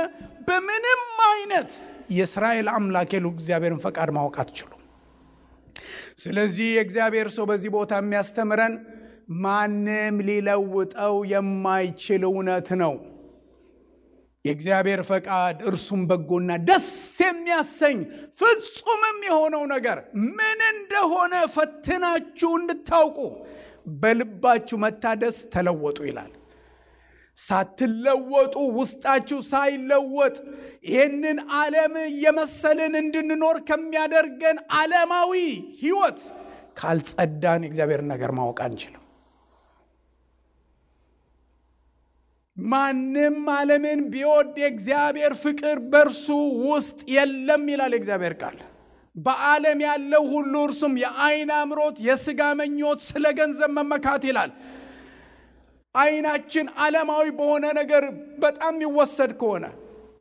በምንም አይነት የእስራኤል አምላክ እግዚአብሔርን ፈቃድ ማወቅ አትችሉም። ስለዚህ የእግዚአብሔር ሰው በዚህ ቦታ የሚያስተምረን ማንም ሊለውጠው የማይችል እውነት ነው። የእግዚአብሔር ፈቃድ እርሱም በጎና ደስ የሚያሰኝ ፍጹምም የሆነው ነገር ምን እንደሆነ ፈትናችሁ እንድታውቁ በልባችሁ መታደስ ተለወጡ ይላል። ሳትለወጡ ውስጣችሁ ሳይለወጥ ይህንን ዓለም የመሰልን እንድንኖር ከሚያደርገን ዓለማዊ ሕይወት ካልጸዳን የእግዚአብሔር ነገር ማወቅ አንችልም። ማንም ዓለምን ቢወድ የእግዚአብሔር ፍቅር በእርሱ ውስጥ የለም ይላል የእግዚአብሔር ቃል። በዓለም ያለው ሁሉ እርሱም የዓይን አምሮት፣ የሥጋ ምኞት፣ ስለ ገንዘብ መመካት ይላል። ዓይናችን ዓለማዊ በሆነ ነገር በጣም ይወሰድ ከሆነ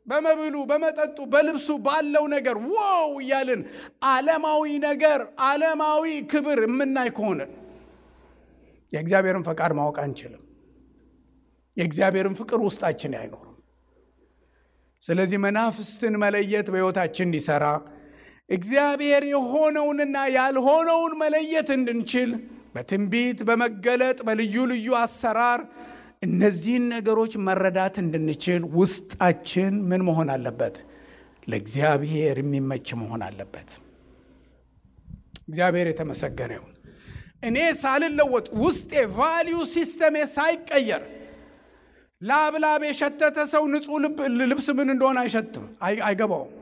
በመብሉ፣ በመጠጡ፣ በልብሱ ባለው ነገር ዋው እያልን ዓለማዊ ነገር፣ ዓለማዊ ክብር የምናይ ከሆነ የእግዚአብሔርን ፈቃድ ማወቅ አንችልም። የእግዚአብሔርን ፍቅር ውስጣችን አይኖርም። ስለዚህ መናፍስትን መለየት በሕይወታችን እንዲሰራ እግዚአብሔር የሆነውንና ያልሆነውን መለየት እንድንችል በትንቢት፣ በመገለጥ፣ በልዩ ልዩ አሰራር እነዚህን ነገሮች መረዳት እንድንችል ውስጣችን ምን መሆን አለበት? ለእግዚአብሔር የሚመች መሆን አለበት። እግዚአብሔር የተመሰገነ ይሁን። እኔ ሳልለወጥ ውስጤ ቫልዩ ሲስተሜ ሳይቀየር ላብላብ የሸተተ ሰው ንጹህ ልብስ ምን እንደሆነ አይሸትም፣ አይገባውም።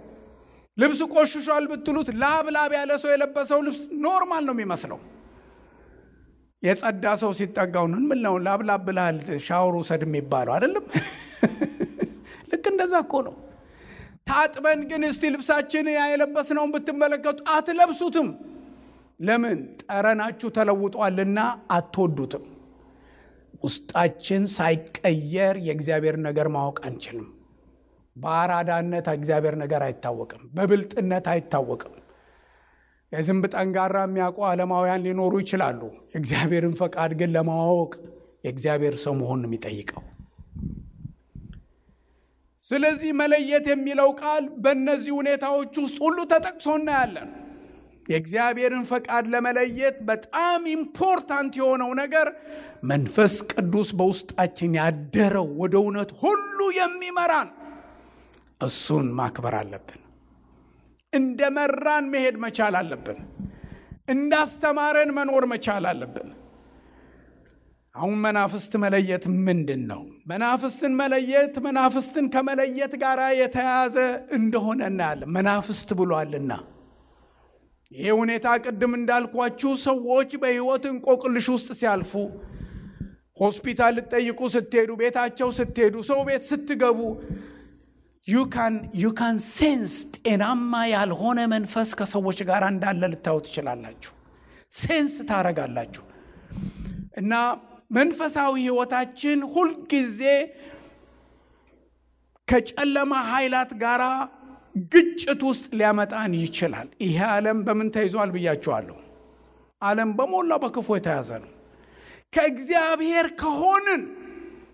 ልብስ ቆሽሿል ብትሉት ላብላብ ያለ ሰው የለበሰው ልብስ ኖርማል ነው የሚመስለው። የጸዳ ሰው ሲጠጋው ምን ነው ላብላብ ብላል ሻወር ውሰድ የሚባለው አይደለም? ልክ እንደዛ እኮ ነው። ታጥበን ግን እስቲ ልብሳችን ያለበስነውን ብትመለከቱ አትለብሱትም። ለምን? ጠረናችሁ ተለውጧልና አትወዱትም። ውስጣችን ሳይቀየር የእግዚአብሔር ነገር ማወቅ አንችልም። በአራዳነት እግዚአብሔር ነገር አይታወቅም። በብልጥነት አይታወቅም። የዝንብ ጠንጋራ የሚያውቁ ዓለማውያን ሊኖሩ ይችላሉ። የእግዚአብሔርን ፈቃድ ግን ለማወቅ የእግዚአብሔር ሰው መሆን ነው የሚጠይቀው። ስለዚህ መለየት የሚለው ቃል በእነዚህ ሁኔታዎች ውስጥ ሁሉ ተጠቅሶ እናያለን። የእግዚአብሔርን ፈቃድ ለመለየት በጣም ኢምፖርታንት የሆነው ነገር መንፈስ ቅዱስ በውስጣችን ያደረው ወደ እውነት ሁሉ የሚመራን እሱን ማክበር አለብን። እንደመራን መሄድ መቻል አለብን። እንዳስተማረን መኖር መቻል አለብን። አሁን መናፍስት መለየት ምንድን ነው? መናፍስትን መለየት መናፍስትን ከመለየት ጋር የተያያዘ እንደሆነ እናያለን። መናፍስት ብሏልና ይሄ ሁኔታ ቅድም እንዳልኳችሁ ሰዎች በሕይወት እንቆቅልሽ ውስጥ ሲያልፉ፣ ሆስፒታል ልትጠይቁ ስትሄዱ፣ ቤታቸው ስትሄዱ፣ ሰው ቤት ስትገቡ you can sense ጤናማ ያልሆነ መንፈስ ከሰዎች ጋር እንዳለ ልታዩ ትችላላችሁ። ሴንስ ታረጋላችሁ። እና መንፈሳዊ ሕይወታችን ሁልጊዜ ከጨለማ ኃይላት ጋር ግጭት ውስጥ ሊያመጣን ይችላል። ይሄ ዓለም በምን ተይዟል ብያችኋለሁ? ዓለም በሞላ በክፉ የተያዘ ነው። ከእግዚአብሔር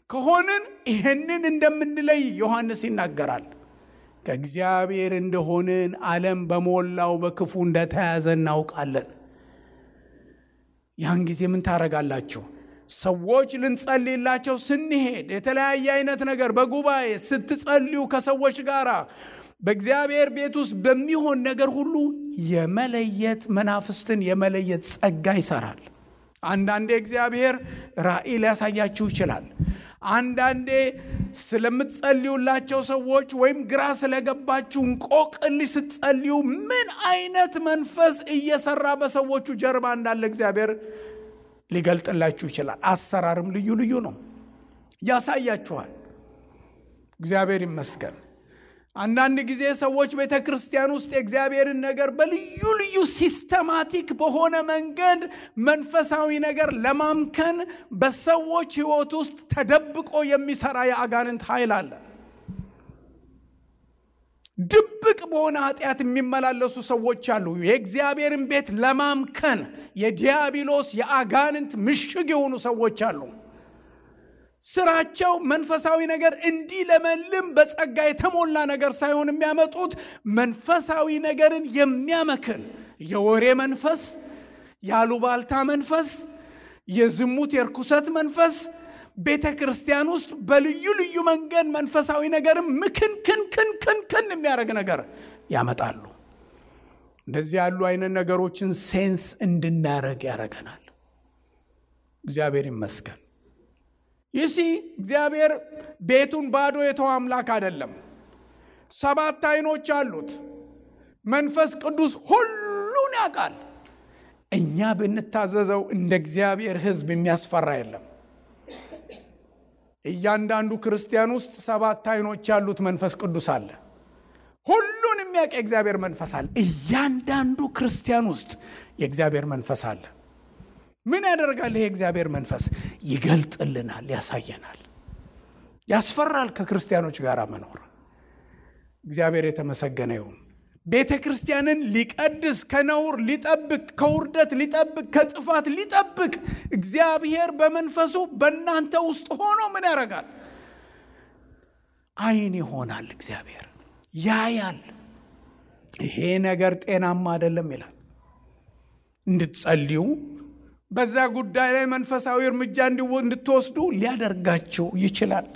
ከሆንን ይህንን እንደምንለይ ዮሐንስ ይናገራል። ከእግዚአብሔር እንደሆንን ዓለም በሞላው በክፉ እንደተያዘ እናውቃለን። ያን ጊዜ ምን ታረጋላችሁ? ሰዎች ልንጸልይላቸው ስንሄድ የተለያየ አይነት ነገር በጉባኤ ስትጸልዩ ከሰዎች ጋር በእግዚአብሔር ቤት ውስጥ በሚሆን ነገር ሁሉ የመለየት መናፍስትን የመለየት ጸጋ ይሰራል። አንዳንዴ እግዚአብሔር ራእይ ሊያሳያችሁ ይችላል። አንዳንዴ ስለምትጸልዩላቸው ሰዎች ወይም ግራ ስለገባችሁ እንቆቅልሽ ስትጸልዩ ምን አይነት መንፈስ እየሰራ በሰዎቹ ጀርባ እንዳለ እግዚአብሔር ሊገልጥላችሁ ይችላል። አሰራርም ልዩ ልዩ ነው፣ ያሳያችኋል። እግዚአብሔር ይመስገን። አንዳንድ ጊዜ ሰዎች ቤተክርስቲያን ውስጥ የእግዚአብሔርን ነገር በልዩ ልዩ ሲስተማቲክ በሆነ መንገድ መንፈሳዊ ነገር ለማምከን በሰዎች ሕይወት ውስጥ ተደብቆ የሚሰራ የአጋንንት ኃይል አለ። ድብቅ በሆነ ኃጢአት የሚመላለሱ ሰዎች አሉ። የእግዚአብሔርን ቤት ለማምከን የዲያብሎስ የአጋንንት ምሽግ የሆኑ ሰዎች አሉ። ስራቸው መንፈሳዊ ነገር እንዲለመልም በጸጋ የተሞላ ነገር ሳይሆን የሚያመጡት መንፈሳዊ ነገርን የሚያመክን የወሬ መንፈስ፣ ያሉባልታ መንፈስ፣ የዝሙት የርኩሰት መንፈስ፣ ቤተ ክርስቲያን ውስጥ በልዩ ልዩ መንገድ መንፈሳዊ ነገርም ምክን የሚያደርግ ነገር ያመጣሉ። እንደዚህ ያሉ አይነት ነገሮችን ሴንስ እንድናረግ ያደርገናል። እግዚአብሔር ይመስገን። ይሲ እግዚአብሔር ቤቱን ባዶ የተወ አምላክ አይደለም። 7 አይኖች አሉት። መንፈስ ቅዱስ ሁሉን ያውቃል። እኛ ብንታዘዘው እንደ እግዚአብሔር ሕዝብ የሚያስፈራ የለም። እያንዳንዱ ክርስቲያን ውስጥ 7 አይኖች ያሉት መንፈስ ቅዱስ አለ። ሁሉን የሚያውቅ የእግዚአብሔር መንፈስ አለ። እያንዳንዱ ክርስቲያን ውስጥ የእግዚአብሔር መንፈስ አለ። ምን ያደርጋል? ይሄ እግዚአብሔር መንፈስ ይገልጥልናል፣ ያሳየናል። ያስፈራል ከክርስቲያኖች ጋር መኖር። እግዚአብሔር የተመሰገነ ይሁን። ቤተ ክርስቲያንን ሊቀድስ፣ ከነውር ሊጠብቅ፣ ከውርደት ሊጠብቅ፣ ከጥፋት ሊጠብቅ እግዚአብሔር በመንፈሱ በእናንተ ውስጥ ሆኖ ምን ያደርጋል? አይን ይሆናል። እግዚአብሔር ያያል። ይሄ ነገር ጤናማ አይደለም ይላል። እንድትጸልዩ፣ በዛ ጉዳይ ላይ መንፈሳዊ እርምጃ እንድትወስዱ ሊያደርጋችሁ ይችላል።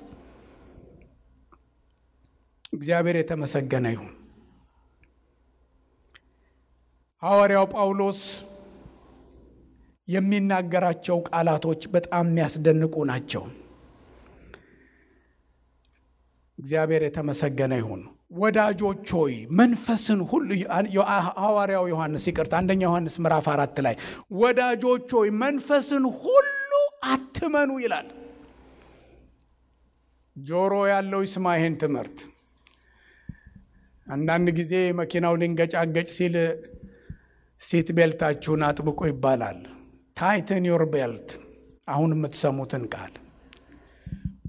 እግዚአብሔር የተመሰገነ ይሁን። ሐዋርያው ጳውሎስ የሚናገራቸው ቃላቶች በጣም የሚያስደንቁ ናቸው። እግዚአብሔር የተመሰገነ ይሁን። ወዳጆች ሆይ መንፈስን ሁሉ ሐዋርያው ዮሐንስ አንደኛ ዮሐንስ ምዕራፍ 4 ላይ ወዳጆች ሆይ መንፈስን ሁሉ አትመኑ ይላል። ጆሮ ያለው ይስማ ይሄን ትምህርት። አንዳንድ ጊዜ መኪናው ሊንገጫገጭ ሲል ሲት ቤልታችሁን አጥብቁ ይባላል። ታይትን ዮር ቤልት። አሁን የምትሰሙትን ቃል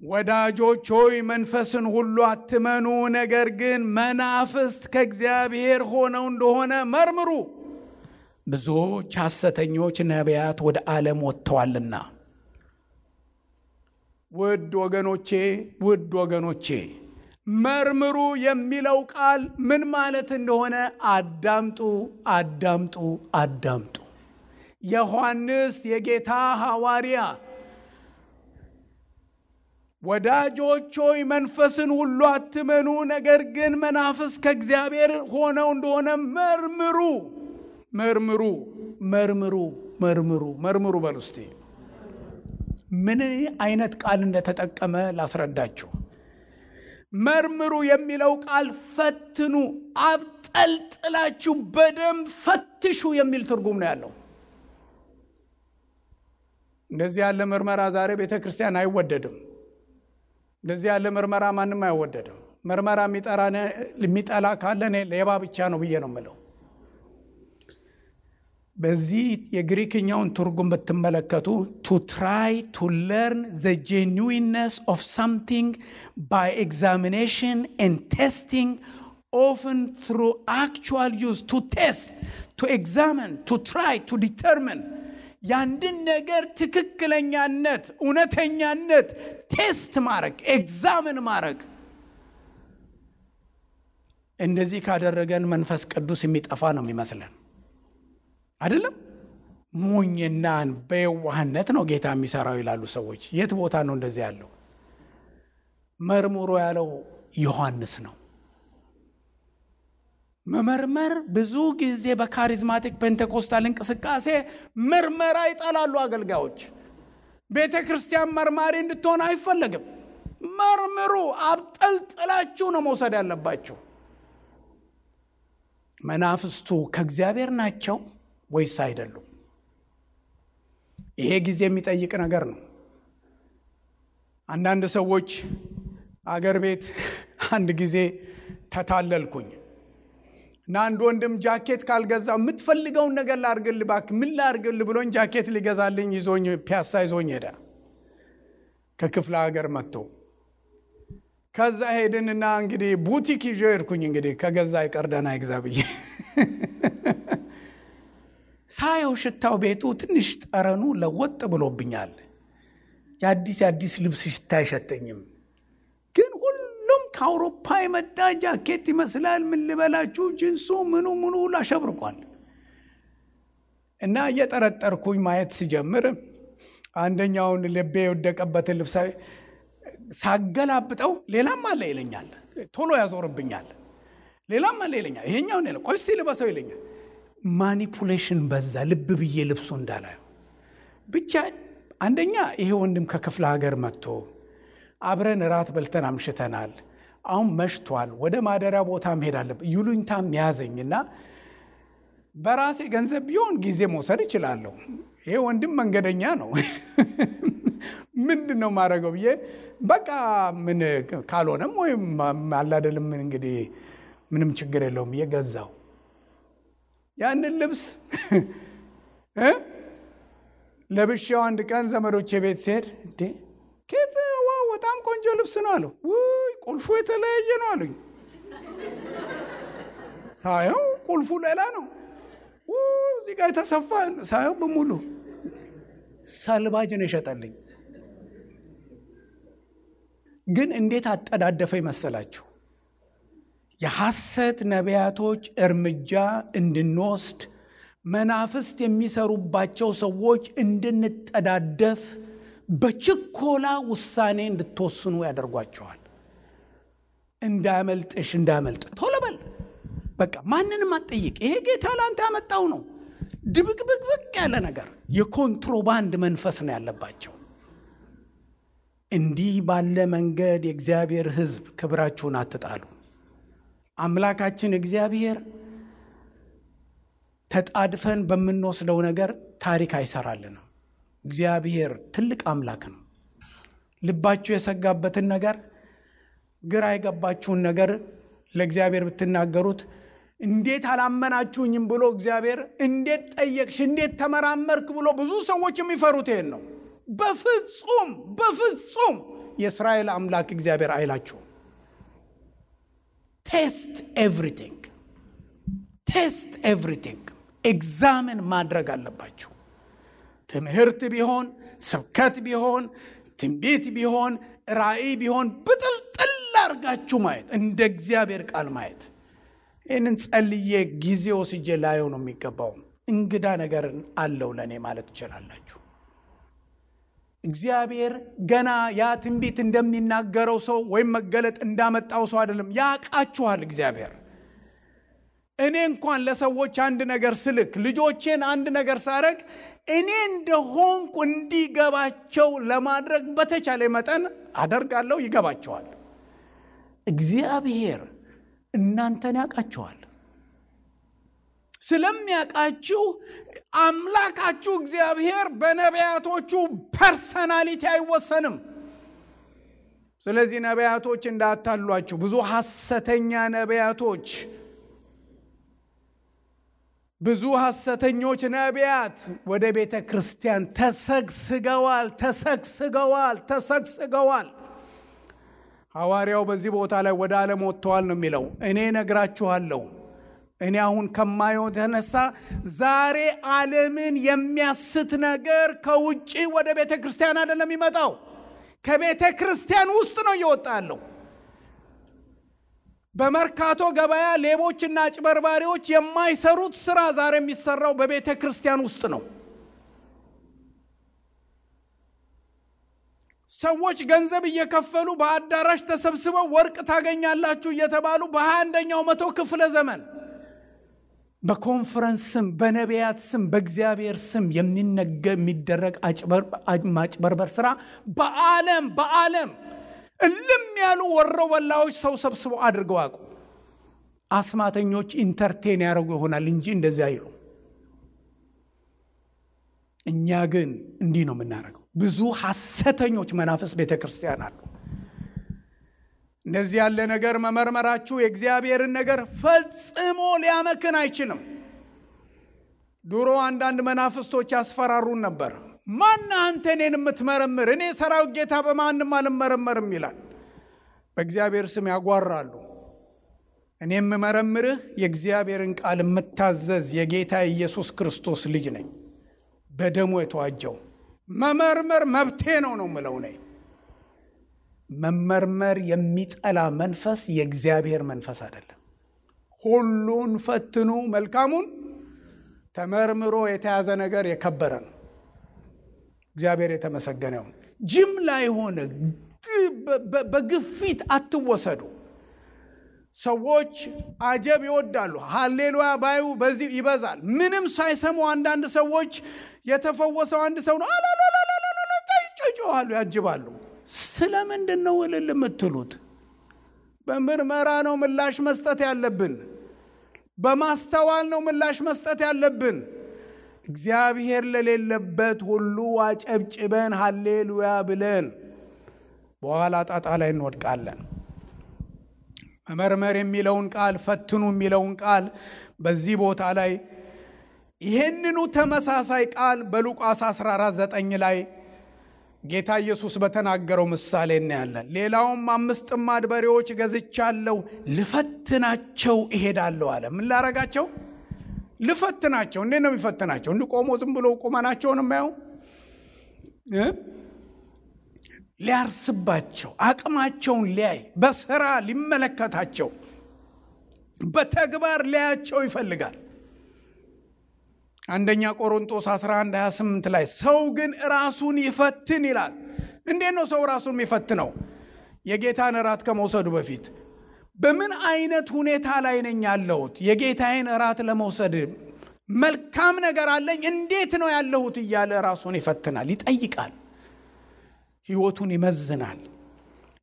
ወዳጆች ሆይ መንፈስን ሁሉ አትመኑ፣ ነገር ግን መናፍስት ከእግዚአብሔር ሆነው እንደሆነ መርምሩ፣ ብዙዎች ሐሰተኞች ነቢያት ወደ ዓለም ወጥተዋልና። ውድ ወገኖቼ መርምሩ የሚለው ቃል ምን ማለት እንደሆነ አዳምጡ። ዮሐንስ የጌታ ሐዋርያ ወዳጆች ሆይ መንፈስን ሁሉ አትመኑ፣ ነገር ግን መናፍስት ከእግዚአብሔር ሆነው እንደሆነ መርምሩ በሉ እስቲ። ምን አይነት ቃል እንደተጠቀመ ላስረዳችሁ። መርምሩ የሚለው ቃል ፈትኑ፣ አብጠልጥላችሁ በደንብ ፈትሹ የሚል ትርጉም ነው ያለው። እንደዚህ ያለ ምርመራ ዛሬ ቤተ ክርስቲያን አይወደድም። እንደዚህ ያለ ምርመራ ማንም አይወደድም። ምርመራ የሚጠላ ካለ እኔ ሌባ ብቻ ነው ብዬ ነው የምለው። በዚህ የግሪክኛውን ትርጉም ብትመለከቱ to try to learn the genuineness of something by examination and testing, often through actual use. To test, to examine, to try, to determine. ያንድን ነገር ትክክለኛነት፣ እውነተኛነት ቴስት ማድረግ፣ ኤግዛምን ማድረግ። እንደዚህ ካደረገን መንፈስ ቅዱስ የሚጠፋ ነው የሚመስለን አይደለም። ሞኝናን በየዋህነት ነው ጌታ የሚሰራው ይላሉ ሰዎች። የት ቦታ ነው እንደዚህ ያለው? መርምሮ ያለው ዮሐንስ ነው። መመርመር ብዙ ጊዜ በካሪዝማቲክ ፔንቴኮስታል እንቅስቃሴ ምርመራ ይጠላሉ አገልጋዮች። ቤተ ክርስቲያን መርማሪ እንድትሆን አይፈለግም። መርምሩ፣ አብጠልጥላችሁ ነው መውሰድ ያለባችሁ። መናፍስቱ ከእግዚአብሔር ናቸው ወይስ አይደሉም? ይሄ ጊዜ የሚጠይቅ ነገር ነው። አንዳንድ ሰዎች አገር ቤት አንድ ጊዜ ተታለልኩኝ እና አንድ ወንድም ጃኬት ካልገዛው የምትፈልገውን ነገር ላርግል ባክ ምን ላርግል ብሎኝ ጃኬት ሊገዛልኝ ይዞኝ ፒያሳ ይዞኝ ሄደ። ከክፍለ ሀገር መጥቶ ከዛ ሄድንና እንግዲህ ቡቲክ ይዤ ሄድኩኝ። እንግዲህ ከገዛ ይቀርደና ይግዛብኝ ሳየው ሽታው ቤቱ ትንሽ ጠረኑ ለወጥ ብሎብኛል። የአዲስ ልብስ ሽታ አይሸተኝም። ግን ሁሉም ከአውሮፓ የመጣ ጃኬት ይመስላል። ምን ልበላችሁ፣ ጂንሱ ምኑ ላሸብርቋል። እና እየጠረጠርኩኝ ማየት ሲጀምር አንደኛውን ልቤ የወደቀበትን ልብስ ሳገላብጠው ሌላም አለ ይለኛል። ቶሎ ያዞርብኛል። ሌላም አለ ይለኛል። ይሄኛው ነው ቆይ እስቲ ልበሰው ይለኛል። ማኒፑሌሽን በዛ። ልብ ብዬ ልብሱ እንዳላየው ብቻ። አንደኛ ይሄ ወንድም ከክፍለ ሀገር መጥቶ አብረን ራት በልተን አምሽተናል። አሁን መሽቷል። ወደ ማደሪያ ቦታ መሄድ አለብኝ። ይሉኝታም ያዘኝና በራሴ ገንዘብ ቢሆን ጊዜ መውሰድ እችላለሁ። ይሄ ወንድም መንገደኛ ነው። ምንድነው ማድረገው ብዬ በቃ ምን ካልሆነም ወይም አላደለም እንግዲህ ምንም ችግር የለውም ብዬ ገዛው። ያንን ልብስ ለብሼው አንድ ቀን ዘመዶቼ ቤት ሲሄድ እንዴ ዋው በጣም ቆንጆ ልብስ ነው አሉ። ውይ ቁልፉ የተለያየ ነው አሉኝ። ሳየው ቁልፉ ሌላ ነው። እዚህ ጋር የተሰፋ ሳየው በሙሉ ሳልባጅ ነው የሸጠልኝ። ግን እንዴት አጠዳደፈ ይመስላችሁ? የሐሰት ነቢያቶች እርምጃ እንድንወስድ መናፍስት የሚሰሩባቸው ሰዎች እንድንጠዳደፍ በችኮላ ውሳኔ እንድትወስኑ ያደርጓቸዋል። እንዳመልጥሽ እንዳመልጥ ቶሎ በል በቃ ማንንም አትጠይቅ። ይሄ ጌታ ላንተ ያመጣው ነው። ድብቅብቅብቅ ያለ ነገር የኮንትሮባንድ መንፈስ ነው ያለባቸው። እንዲህ ባለ መንገድ የእግዚአብሔር ሕዝብ ክብራችሁን አትጣሉ። አምላካችን እግዚአብሔር ተጣድፈን በምንወስደው ነገር ታሪክ አይሰራልንም። እግዚአብሔር ትልቅ አምላክ ነው። ልባችሁ የሰጋበትን ነገር፣ ግራ የገባችሁን ነገር ለእግዚአብሔር ብትናገሩት እንዴት አላመናችሁኝም ብሎ እግዚአብሔር እንዴት ጠየቅሽ እንዴት ተመራመርክ ብሎ ብዙ ሰዎች የሚፈሩት ይሄን ነው። በፍጹም የእስራኤል አምላክ እግዚአብሔር አይላችሁ። ቴስት ኤቭሪቲንግ ኤግዛምን ማድረግ አለባችሁ። ትምህርት ቢሆን፣ ስብከት ቢሆን፣ ትንቢት ቢሆን፣ ራእይ ቢሆን ብጥልጥል አድርጋችሁ ማየት፣ እንደ እግዚአብሔር ቃል ማየት። ይህንን ጸልዬ ጊዜ ወስጄ ላየው ነው የሚገባው። እንግዳ ነገር አለው ለእኔ ማለት ትችላላችሁ። እግዚአብሔር ገና ያ ትንቢት እንደሚናገረው ሰው ወይም መገለጥ እንዳመጣው ሰው አይደለም። ያውቃችኋል እግዚአብሔር። እኔ እንኳን ለሰዎች አንድ ነገር ስልክ፣ ልጆቼን አንድ ነገር ሳረግ እኔ እንደሆንኩ እንዲገባቸው ለማድረግ በተቻለ መጠን አደርጋለሁ። ይገባቸዋል። እግዚአብሔር እናንተን ያውቃችኋል። ስለሚያውቃችሁ አምላካችሁ እግዚአብሔር በነቢያቶቹ ፐርሰናሊቲ አይወሰንም። ስለዚህ ነቢያቶች እንዳታሏችሁ። ብዙ ሐሰተኛ ነቢያቶች፣ ብዙ ሐሰተኞች ነቢያት ወደ ቤተ ክርስቲያን ተሰግስገዋል። ሐዋርያው በዚህ ቦታ ላይ ወደ ዓለም ወጥተዋል ነው የሚለው። እኔ ነግራችኋለሁ፣ እኔ አሁን ከማየው ተነሳ ዛሬ ዓለምን የሚያስት ነገር ከውጪ ወደ ቤተ ክርስቲያን አይደለም የሚመጣው፣ ከቤተ ክርስቲያን ውስጥ ነው እየወጣ ያለው። በመርካቶ ገበያ ሌቦችና አጭበርባሪዎች የማይሰሩት ስራ ዛሬ የሚሰራው በቤተ ክርስቲያን ውስጥ ነው። ሰዎች ገንዘብ እየከፈሉ በአዳራሽ ተሰብስበው ወርቅ ታገኛላችሁ እየተባሉ በ21ኛው መቶ ክፍለ ዘመን በኮንፈረንስ ስም፣ በነቢያት ስም፣ በእግዚአብሔር ስም የሚደረግ ማጭበርበር ስራ በዓለም እልም ያሉ ወሮበላዎች ሰው ሰብስበው አድርገው አቁ። አስማተኞች ኢንተርቴን ያደርጉ ይሆናል እንጂ እንደዚህ አይሉ። እኛ ግን እንዲህ ነው የምናደርገው። ብዙ ሐሰተኞች መናፍስ ቤተክርስቲያን አሉ። እንደዚህ ያለ ነገር መመርመራችሁ የእግዚአብሔርን ነገር ፈጽሞ ሊያመክን አይችልም። ድሮ አንዳንድ መናፍስቶች ያስፈራሩን ነበር። ማን አንተ እኔን የምትመረምር? እኔ ሰራዊት ጌታ በማንም አልመረመርም ይላል። በእግዚአብሔር ስም ያጓራሉ። እኔ የምመረምርህ የእግዚአብሔርን ቃል የምታዘዝ የጌታ ኢየሱስ ክርስቶስ ልጅ ነኝ፣ በደሙ የተዋጀው። መመርመር መብቴ ነው የምለው ነኝ። መመርመር የሚጠላ መንፈስ የእግዚአብሔር መንፈስ አይደለም። ሁሉን ፈትኑ፣ መልካሙን ተመርምሮ የተያዘ ነገር የከበረ ነው። እግዚአብሔር የተመሰገነ ይሁን። ጅምላ የሆነ በግፊት አትወሰዱ። ሰዎች አጀብ ይወዳሉ። ሃሌሉያ ባዩ በዚህ ይበዛል። ምንም ሳይሰሙ አንዳንድ ሰዎች የተፈወሰው አንድ ሰው ነው ይጮሃሉ፣ ያጅባሉ። ስለምንድን ነው እልል የምትሉት? በምርመራ ነው ምላሽ መስጠት ያለብን። በማስተዋል ነው ምላሽ መስጠት ያለብን። እግዚአብሔር ለሌለበት ሁሉ አጨብጭበን ሃሌሉያ ብለን በኋላ ጣጣ ላይ እንወድቃለን። መመርመር የሚለውን ቃል፣ ፈትኑ የሚለውን ቃል በዚህ ቦታ ላይ ይህንኑ ተመሳሳይ ቃል በሉቃስ 14:9 ላይ ጌታ ኢየሱስ በተናገረው ምሳሌ እናያለን። ሌላውም 5 ጥማድ በሬዎች ገዝቻለሁ፣ ልፈትናቸው እሄዳለሁ አለ። ምን ላረጋቸው? ልፈትናቸው። እንዴት ነው የሚፈትናቸው? እንዲቆሙ ዝም ብሎ ቁመናቸውን የማየው ሊያርስባቸው፣ አቅማቸውን ሊያይ፣ በስራ ሊመለከታቸው፣ በተግባር ሊያያቸው ይፈልጋል። አንደኛ ቆሮንቶስ 11:28 ላይ ሰው ግን ራሱን ይፈትን ይላል። እንዴት ነው ሰው ራሱን የሚፈትነው? የጌታን እራት ከመውሰዱ በፊት በምን አይነት ሁኔታ ላይ ነኝ ያለሁት? የጌታዬን እራት ለመውሰድ መልካም ነገር አለኝ? እንዴት ነው ያለሁት እያለ ራሱን ይፈትናል፣ ይጠይቃል፣ ሕይወቱን ይመዝናል።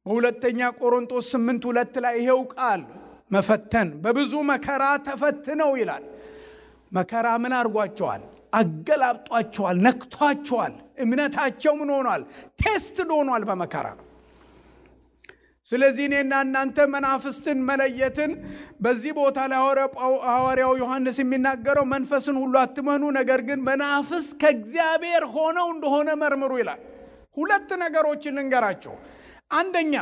በሁለተኛ ቆሮንቶስ 8:2 ላይ ይሄው ቃል መፈተን በብዙ መከራ ተፈትነው ይላል። መከራ ምን አድርጓቸዋል? አገላብጧቸዋል፣ ነክቷቸዋል። እምነታቸው ምን ሆኗል? ቴስት ሆኗል በመከራ። ስለዚህ እኔና እናንተ መናፍስትን መለየትን በዚህ ቦታ ላይ ሐዋርያው ዮሐንስ የሚናገረው መንፈስን ሁሉ አትመኑ፣ ነገር ግን መናፍስት ከእግዚአብሔር ሆነው እንደሆነ መርምሩ ይላል። 2 ነገሮችን እንገራቸው። አንደኛ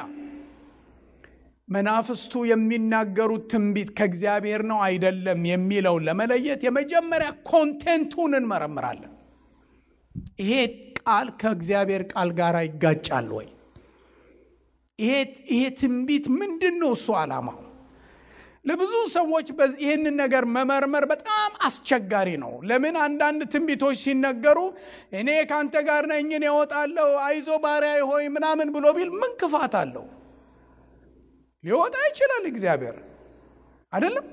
መናፍስቱ የሚናገሩት ትንቢት ከእግዚአብሔር ነው አይደለም የሚለውን ለመለየት የመጀመሪያ ኮንቴንቱን እንመረምራለን። ይሄ ቃል ከእግዚአብሔር ቃል ጋር ይጋጫል ወይ? ይሄ ትንቢት ምንድነው እሱ ዓላማው? ለብዙ ሰዎች ይህንን ነገር መመርመር በጣም አስቸጋሪ ነው። ለምን? አንዳንድ ትንቢቶች ሲነገሩ እኔ ካንተ ጋር ነኝ እወጣለሁ፣ አይዞ ባሪያዬ ሆይ ምናምን ብሎ ቢል ምን ክፋት አለው? ሊወጣ ይችላል እግዚአብሔር አይደለም?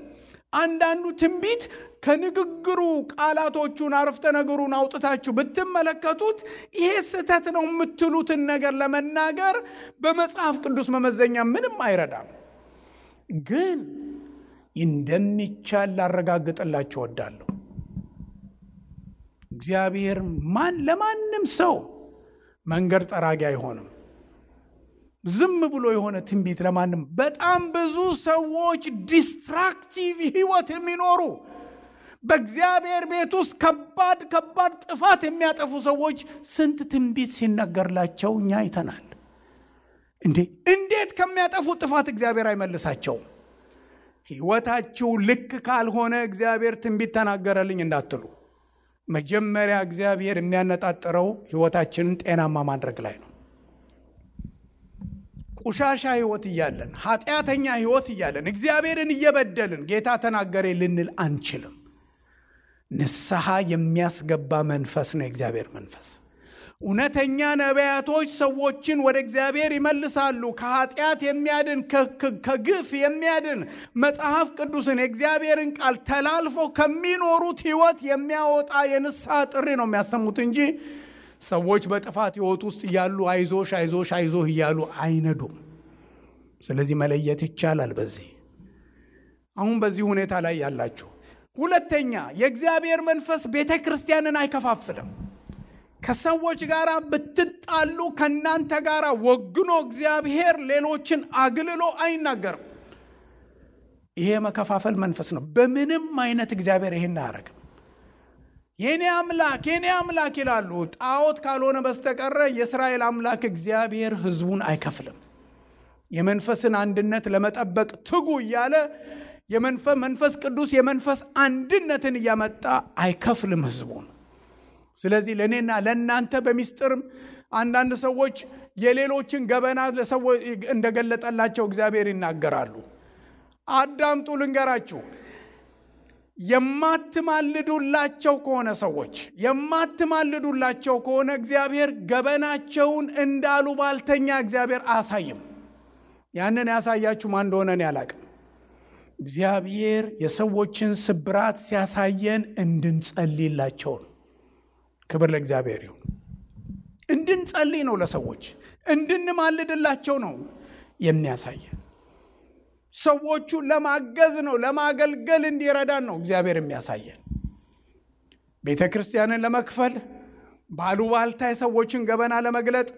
አንዳንዱ ትንቢት ከንግግሩ ቃላቶቹን አረፍተ ነገሩን አውጥታችሁ ብትመለከቱት ይሄ ስህተት ነው የምትሉትን ነገር ለመናገር በመጽሐፍ ቅዱስ መመዘኛ ምንም አይረዳም። ግን እንደሚቻል ላረጋግጥላችሁ እወዳለሁ። እግዚአብሔር ለማንም ሰው መንገድ ጠራጊ አይሆንም። ዝም ብሎ የሆነ ትንቢት ለማንም በጣም ብዙ ሰዎች ዲስትራክቲቭ ህይወት የሚኖሩ በእግዚአብሔር ቤት ውስጥ ከባድ ጥፋት የሚያጠፉ ሰዎች ስንት ትንቢት ሲነገርላቸው እኛ አይተናል። እንዴት ከሚያጠፉ ጥፋት እግዚአብሔር አይመልሳቸውም? ህይወታችሁ ልክ ካልሆነ እግዚአብሔር ትንቢት ተናገረልኝ እንዳትሉ። መጀመሪያ እግዚአብሔር የሚያነጣጥረው ህይወታችንን ጤናማ ማድረግ ላይ ነው። ቆሻሻ ህይወት እያለን፣ ኃጢአተኛ ህይወት እያለን፣ እግዚአብሔርን እየበደልን ጌታ ተናገረ ልንል አንችልም። ንስሐ የሚያስገባ መንፈስ ነው የእግዚአብሔር መንፈስ። እውነተኛ ነቢያቶች ሰዎችን ወደ እግዚአብሔር ይመልሳሉ። ከኃጢአት የሚያድን ከግፍ የሚያድን መጽሐፍ ቅዱስን የእግዚአብሔርን ቃል ተላልፎ ከሚኖሩት ህይወት የሚያወጣ የንስሐ ጥሪ ነው የሚያሰሙት እንጂ ሰዎች በጥፋት ህይወት ውስጥ እያሉ አይዞሽ አይዞሽ አይዞህ እያሉ አይነዱም። ስለዚህ መለየት ይቻላል። አሁን በዚህ ሁኔታ ላይ ያላችሁ። ሁለተኛ የእግዚአብሔር መንፈስ ቤተ ክርስቲያንን አይከፋፍልም። ከሰዎች ጋር ብትጣሉ ከናንተ ጋር ወግኖ እግዚአብሔር ሌሎችን አግልሎ አይናገርም። ይሄ መከፋፈል መንፈስ ነው። በምንም አይነት እግዚአብሔር ይሄን አያረግም። የኔ አምላክ ይላሉ። ጣዖት ካልሆነ በስተቀር የእስራኤል አምላክ እግዚአብሔር ህዝቡን አይከፍልም። የመንፈስን አንድነት ለመጠበቅ ትጉ እያለ መንፈስ ቅዱስ የመንፈስ አንድነትን እያመጣ አይከፍልም ህዝቡን። ስለዚህ ለኔና ለናንተ በሚስጥር አንዳንድ ሰዎች የሌሎችን ገበና ለሰዎች እንደገለጠላቸው እግዚአብሔር ይናገራሉ። አዳምጡ ልንገራችሁ። የማትማልዱላቸው ከሆነ ሰዎች የማትማልዱላቸው ከሆነ እግዚአብሔር ገበናቸውን እንዳሉ ባልተኛ እግዚአብሔር አያሳይም። ያንን ያሳያችሁ ማን እንደሆነ እኔ አላቅም። እግዚአብሔር የሰዎችን ስብራት ሲያሳየን እንድንጸልይላቸው ነው። ክብር ለእግዚአብሔር ይሁን። እንድንጸልይ ነው፣ ለሰዎች እንድንማልድላቸው ነው የሚያሳየን። ሰዎቹ ለማገዝ ነው፣ ለማገልገል እንዲረዳን ነው እግዚአብሔር የሚያሳየን። ቤተ ክርስቲያንን ለመክፈል ባሉባልታ የሰዎችን ገበና ለመግለጥ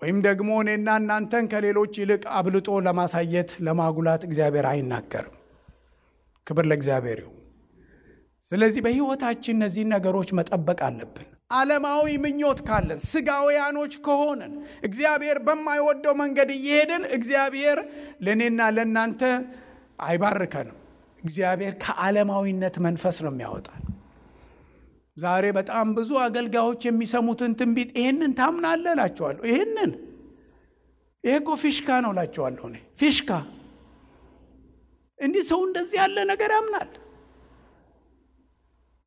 ወይም ደግሞ እኔና እናንተን ከሌሎች ይልቅ አብልጦ ለማሳየት ለማጉላት እግዚአብሔር አይናገርም። ክብር ለእግዚአብሔር ይሁን። ስለዚህ በሕይወታችን እነዚህን ነገሮች መጠበቅ አለብን። ዓለማዊ ምኞት ካለን፣ ስጋውያኖች ከሆነን፣ እግዚአብሔር በማይወደው መንገድ እየሄድን እግዚአብሔር ለእኔና ለእናንተ አይባርከንም። እግዚአብሔር ከዓለማዊነት መንፈስ ነው የሚያወጣን። ዛሬ በጣም ብዙ አገልጋዮች የሚሰሙትን ትንቢት ይህንን ታምናለህ እላቸዋለሁ። ይሄ እኮ ፊሽካ ነው እላቸዋለሁ። እኔ ፊሽካ እንዲህ ሰው እንደዚህ ያለ ነገር ያምናል።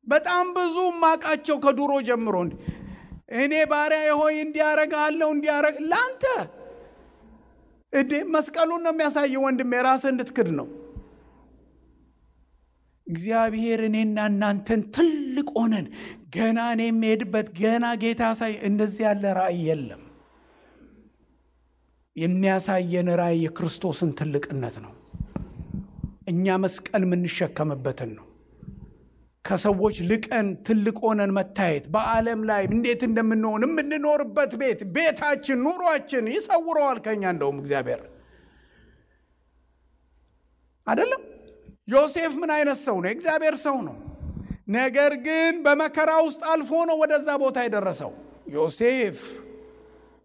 በጣም ብዙ ማቃቸው ከዱሮ ጀምሮ እኔ ባሪያ ሆይ እንዲያረጋለሁ እንዲያረግ ላንተ መስቀሉን ነው የሚያሳየው። ወንድሜ ራስህ እንድትክድ ነው። እግዚአብሔር እኔና እናንተን ትልቅ ሆነን ገና እኔ የምሄድበት ገና ጌታ ሳይ እንደዚህ ያለ ራእይ የለም። የሚያሳየን ራእይ የክርስቶስን ትልቅነት ነው። እኛ መስቀል የምንሸከምበትን ነው። ከሰዎች ልቀን ትልቅ ሆነን መታየት፣ በዓለም ላይ እንዴት እንደምንሆን የምንኖርበት ቤታችን፣ ኑሯችን ይሰውረዋል ከኛ። እንደውም እግዚአብሔር አይደለም። ዮሴፍ ምን አይነት ሰው ነው? እግዚአብሔር ሰው ነው። ነገር ግን በመከራ ውስጥ አልፎ ነው ወደዛ ቦታ የደረሰው። ዮሴፍ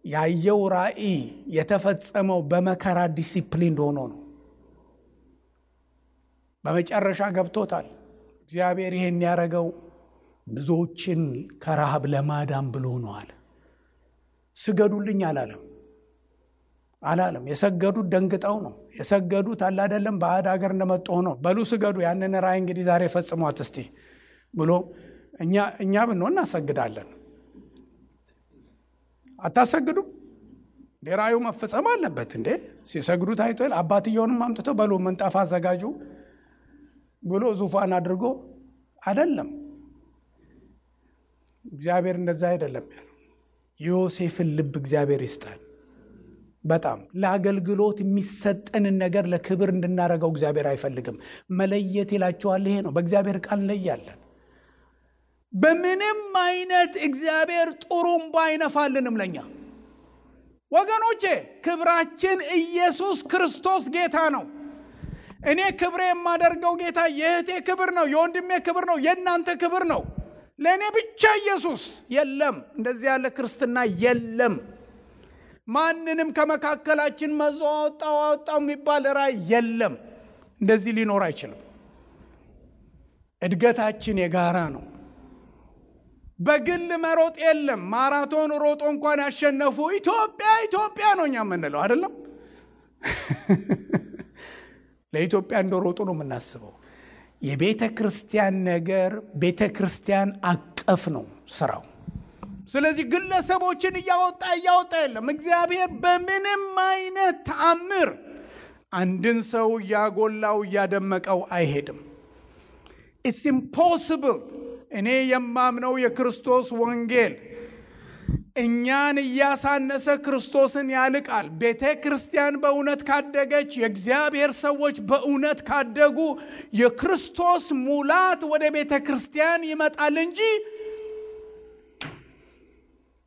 ያየው ራእይ የተፈጸመው በመከራ ዲሲፕሊን ሆኖ ነው። በመጨረሻ ገብቶታል። እግዚአብሔር ይሄን ያረገው ብዙዎችን ከረሃብ ለማዳን ብሎ ነው አለ። ስገዱልኝ አላለም። የሰገዱት ደንግጠው ነው የሰገዱት። አለ አይደለም ባዕድ ሀገር እንደመጡ ሆኖ በሉ ስገዱ፣ ያንን ራእይ እንግዲህ ዛሬ ፈጽሟት እስቲ ብሎ እኛ ብንሆን እናሰግዳለን። አታሰግዱም? ራእዩ መፈጸም አለበት እንዴ? ሲሰግዱት አይቷል። አባትየውንም አምጥቶ በሉ ምንጣፍ አዘጋጁ ብሎ ዙፋን አድርጎ አይደለም። እግዚአብሔር እንደዛ አይደለም ያለው። ዮሴፍን ልብ እግዚአብሔር ይስጠን። በጣም ለአገልግሎት የሚሰጠንን ነገር ለክብር እንድናረገው እግዚአብሔር አይፈልግም። መለየት ይላቸዋል። ይሄ ነው። በእግዚአብሔር ቃል እንለያለን። በምንም አይነት እግዚአብሔር ጥሩምባ አይነፋልንም ለኛ ወገኖቼ። ክብራችን ኢየሱስ ክርስቶስ ጌታ ነው። እኔ ክብሬ የማደርገው ጌታ የእህቴ ክብር ነው፣ የወንድሜ ክብር ነው፣ የእናንተ ክብር ነው። ለእኔ ብቻ ኢየሱስ የለም። እንደዚህ ያለ ክርስትና የለም። ማንንም ከመካከላችን መዞ አወጣው የሚባል ራእይ የለም። እንደዚህ ሊኖር አይችልም። እድገታችን የጋራ ነው። በግል መሮጥ የለም። ማራቶን ሮጦ እንኳን ያሸነፉ ኢትዮጵያ ነው እኛ የምንለው አይደለም። ለኢትዮጵያ እንደሮጡ ነው የምናስበው። የቤተ ክርስቲያን ነገር ቤተ ክርስቲያን አቀፍ ነው ስራው። ስለዚህ ግለሰቦችን እያወጣ የለም። እግዚአብሔር በምንም አይነት ተአምር አንድን ሰው እያጎላው እያደመቀው አይሄድም። It's impossible። እኔ የማምነው የክርስቶስ ወንጌል እኛን እያሳነሰ ክርስቶስን ያልቃል። ቤተ ክርስቲያን በእውነት ካደገች፣ የእግዚአብሔር ሰዎች በእውነት ካደጉ የክርስቶስ ሙላት ወደ ቤተ ክርስቲያን ይመጣል እንጂ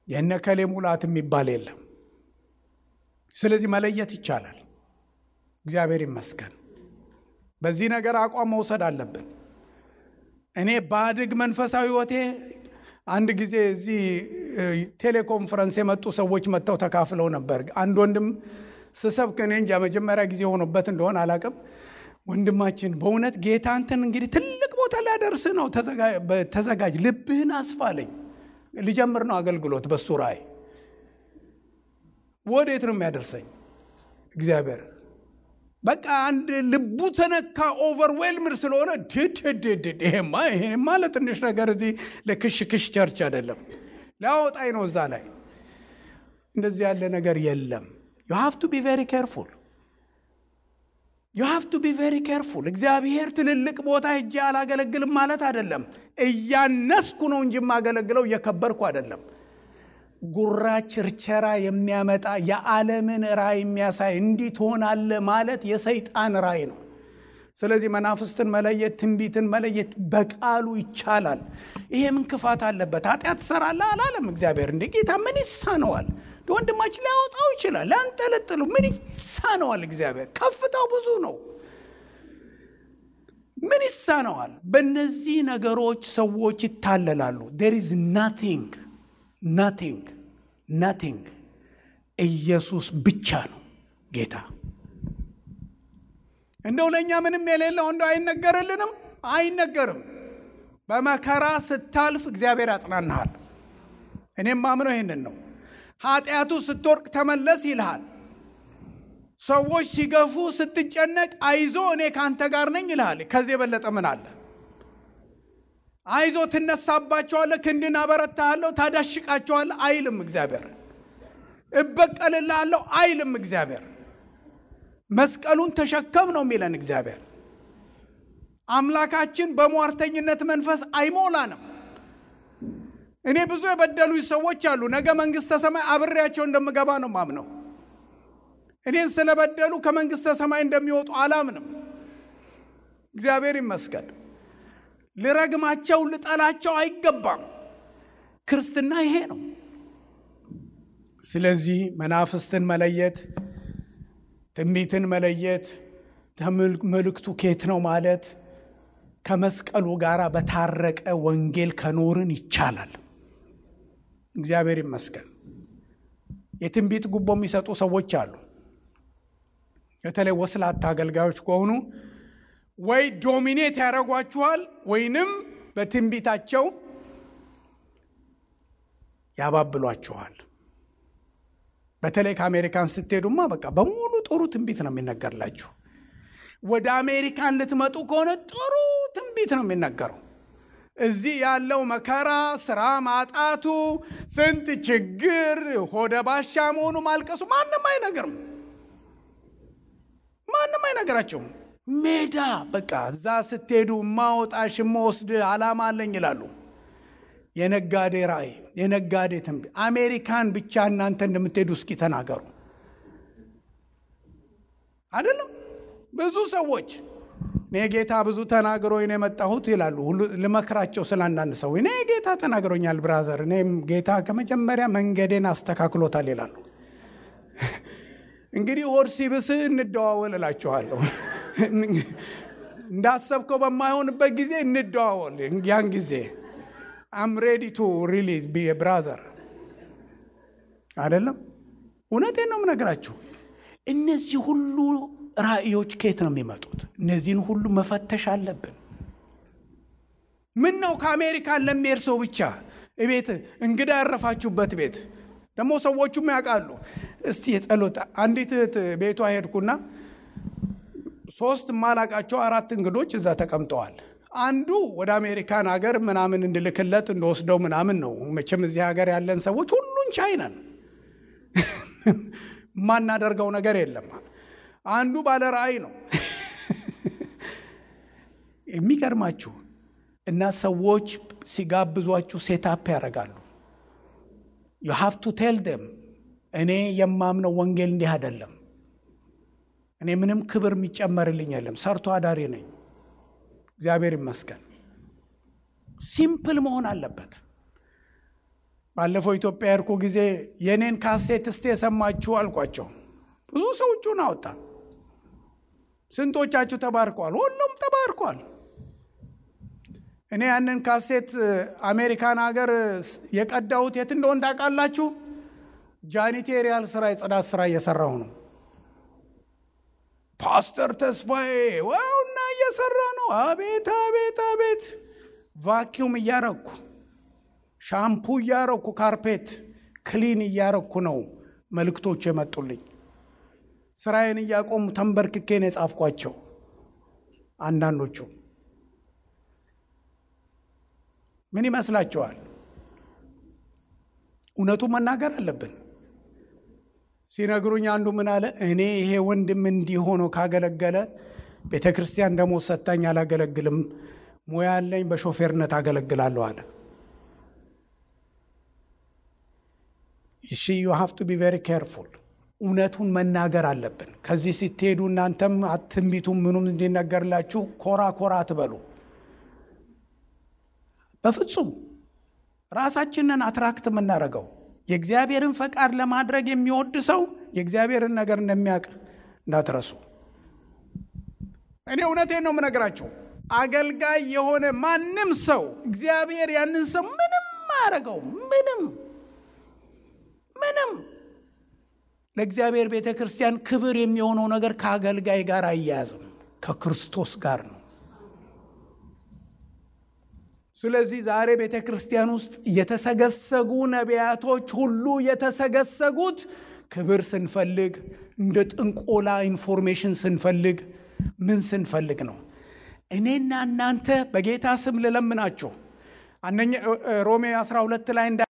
የነከሌ ሙላት የሚባል የለም። ስለዚህ መለየት ይቻላል። እግዚአብሔር ይመስገን። በዚህ ነገር አቋም መውሰድ አለብን። እኔ ባድግ መንፈሳዊ ሕይወቴ አንድ ጊዜ እዚህ ቴሌኮንፈረንስ የመጡ ሰዎች መጥተው ተካፍለው ነበር። አንድ ወንድም ስሰብክ እኔ እንጃ መጀመሪያ ጊዜ ሆኖበት እንደሆነ አላቅም። ወንድማችን በእውነት ጌታ አንተን እንግዲህ ትልቅ ቦታ ላይ ያደርስ ነው፣ ተዘጋጅ፣ ልብህን አስፋለኝ። ልጀምር ነው አገልግሎት በሱ ራእይ። ወዴት ነው የሚያደርሰኝ እግዚአብሔር? በቃ አንድ ልቡ ተነካ ኦቨርዌልምድ ስለሆነ ይሄማ ለትንሽ ነገር እዚህ ለክሽክሽ ቸርች አይደለም ላውጣይ ነው እዛ ላይ እንደዚህ ያለ ነገር የለም። you have to be very careful you have to be very careful እግዚአብሔር ትልልቅ ቦታ ሄጄ አላገለግልም ማለት አይደለም። እያነስኩ ነው እንጂ ማገለግለው እየከበርኩ አይደለም። ጉራ ቸርቸራ የሚያመጣ የዓለምን ራእይ የሚያሳይ እንዲህ ትሆናለህ ማለት የሰይጣን ራእይ ነው። ስለዚህ መናፍስትን መለየት ትንቢትን መለየት በቃሉ ይቻላል። ይሄ ምን ክፋት አለበት? ኃጢአት ሰራላ አላለም እግዚአብሔር። እንደ ጌታ ምን ይሳነዋል? ወንድማችን ሊያወጣው ይችላል ለአንጠለጥሉ ምን ይሳነዋል? እግዚአብሔር ከፍታው ብዙ ነው። ምን ይሳነዋል? በእነዚህ ነገሮች ሰዎች ይታለላሉ። there is nothing ኢየሱስ ብቻ ነው ጌታ። እንደው ለኛ ምንም የሌለው እንደው አይነገርልንም? አይነገርም። በመከራ ስታልፍ እግዚአብሔር ያጽናናሃል። እኔም ማምነው ይሄንን ነው። ኃጢአቱ ስትወርቅ ተመለስ ይልሃል። ሰዎች ሲገፉ ስትጨነቅ አይዞ እኔ ካንተ ጋር ነኝ ይልሃል። ከዚህ የበለጠ ምን አለ? አይዞ ትነሳባቸዋለህ፣ ክንድን አበረታለሁ፣ ታዳሽቃቸዋለህ አይልም እግዚአብሔር። እበቀልልሃለሁ አይልም እግዚአብሔር። መስቀሉን ተሸከም ነው የሚለን እግዚአብሔር። አምላካችን በሟርተኝነት መንፈስ አይሞላንም። እኔ ብዙ የበደሉኝ ሰዎች አሉ። ነገ መንግስተ ሰማይ አብሬያቸው እንደምገባ ነው ማምነው። እኔን ስለበደሉ ከመንግስተ ሰማይ እንደሚወጡ አላምንም። እግዚአብሔር ይመስገን። ልረግማቸው ልጠላቸው አይገባም። ክርስትና ይሄ ነው። ስለዚህ መናፍስትን መለየት፣ ትንቢትን መለየት፣ መልእክቱ ከየት ነው ማለት ከመስቀሉ ጋር በታረቀ ወንጌል ከኖርን ይቻላል። እግዚአብሔር ይመስገን። የትንቢት ጉቦ የሚሰጡ ሰዎች አሉ። በተለይ ወስላታ አገልጋዮች ከሆኑ ወይ ዶሚኔት ያደርጓችኋል ወይንም በትንቢታቸው ያባብሏችኋል። በተለይ ከአሜሪካን ስትሄዱማ በቃ በሙሉ ጥሩ ትንቢት ነው የሚነገርላችሁ። ወደ አሜሪካን ልትመጡ ከሆነ ጥሩ ትንቢት ነው የሚነገረው። እዚህ ያለው መከራ፣ ስራ ማጣቱ፣ ስንት ችግር፣ ሆደ ባሻ መሆኑ፣ ማልቀሱ ማንም አይነግራቸውም። ሜዳ በቃ እዛ ስትሄዱ ማውጣሽ መወስድ ዓላማ አለኝ ይላሉ። የነጋዴ ራእይ፣ የነጋዴ ትንቢት። አሜሪካን ብቻ እናንተ እንደምትሄዱ እስኪ ተናገሩ። አይደለም ብዙ ሰዎች እኔ ጌታ ብዙ ተናግሮኝ ነው የመጣሁት ይላሉ። ልመክራቸው ስላንዳንድ ሰው እኔ ጌታ ተናግሮኛል ብራዘር፣ እኔም ጌታ ከመጀመሪያ መንገዴን አስተካክሎታል ይላሉ። እንግዲህ ሆድ ሲብስ እንደዋወል እላችኋለሁ። እንዳሰብከው በማይሆንበት ጊዜ እንደዋወል። ያን ጊዜ I'm ready to really be a brother። አይደለም እውነቴን ነው የምነግራችሁ። እነዚህ ሁሉ ራእዮች ከየት ነው የሚመጡት? እነዚህን ሁሉ መፈተሽ አለብን። ምን ነው ከአሜሪካን ለሚሄድ ሰው ብቻ ቤት እንግዳ ያረፋችሁበት ቤት ደግሞ ሰዎቹም ያውቃሉ። እስቲ የጸሎት አንዲት ቤቷ ሄድኩና 3 ማላቃቸው 4 እንግዶች እዛ ተቀምጠዋል። አንዱ ወደ አሜሪካን ሀገር ምናምን እንድልክለት እንደወስደው ምናምን ነው። መቼም እዚህ ሀገር ያለን ሰዎች ሁሉን ቻይናን ማናደርገው ነገር የለም። አንዱ ባለ ራእይ ነው። የሚገርማችሁ እና ሰዎች ሲጋብዟችሁ ሴታፕ ያደርጋሉ። you have to tell them እኔ የማምነው ወንጌል እንዲህ አይደለም። እኔ ምንም ክብር የሚጨመርልኝ የለም። ሰርቶ አዳሪ ነኝ። እግዚአብሔር ይመስገን። ሲምፕል መሆን አለበት። ባለፈው ኢትዮጵያ ያርኩ ጊዜ የኔን ካሴት እስቲ የሰማችሁ አልኳቸው። ብዙ ሰዎችን አወጣ። ስንቶቻችሁ ተባርኳል? ሁሉም ተባርኳል። እኔ ያንን ካሴት አሜሪካን ሀገር የቀዳሁት የት እንደሆነ ታውቃላችሁ? ጃኒቴሪያል ስራ፣ የጽዳት ስራ እየሰራሁ ነው። ፓስተር ተስፋዬ ወውና እየሰራ ነው። አቤት አቤት አቤት። ቫኪዩም እያረኩ፣ ሻምፑ እያረኩ፣ ካርፔት ክሊን እያረኩ ነው መልእክቶች የመጡልኝ። ስራዬን እያቆሙ ተንበርክኬ ነው የጻፍኳቸው። አንዳንዶቹ ምን ይመስላችኋል? እውነቱን መናገር አለብን። ሲነግሩኝ አንዱ ምን አለ፣ እኔ ይሄ ወንድም እንዲሆነው ካገለገለ ቤተክርስቲያን ደሞዝ ሰጣኝ አላገለግልም፣ ሙያ ያለኝ በሾፌርነት አገለግላለሁ አለ። you have to be very careful። እውነቱን መናገር አለብን። ከዚህ ስትሄዱ እናንተም አትንቢቱም ምኑም እንዲነገርላችሁ ኮራ ኮራ አትበሉ። በፍጹም ራሳችንን አትራክት የምናደርገው የእግዚአብሔርን ፈቃድ ለማድረግ የሚወድ ሰው የእግዚአብሔርን ነገር እንደሚያውቅ እንዳትረሱ። እኔ እውነቴን ነው የምነግራችሁ። አገልጋይ የሆነ ማንም ሰው እግዚአብሔር ያንን ሰው ምንም አያደርገው። ምንም ለእግዚአብሔር ቤተክርስቲያን ክብር የሚሆነው ነገር ከአገልጋይ ጋር አያያዝም፣ ከክርስቶስ ጋር ነው። ስለዚህ ዛሬ ቤተክርስቲያን ውስጥ የተሰገሰጉ ነቢያቶች ሁሉ የተሰገሰጉት ክብር ስንፈልግ፣ እንደ ጥንቆላ ኢንፎርሜሽን ስንፈልግ፣ ምን ስንፈልግ ነው? እኔና እናንተ በጌታ ስም ልለምናችሁ ሮሜ 12 ላይ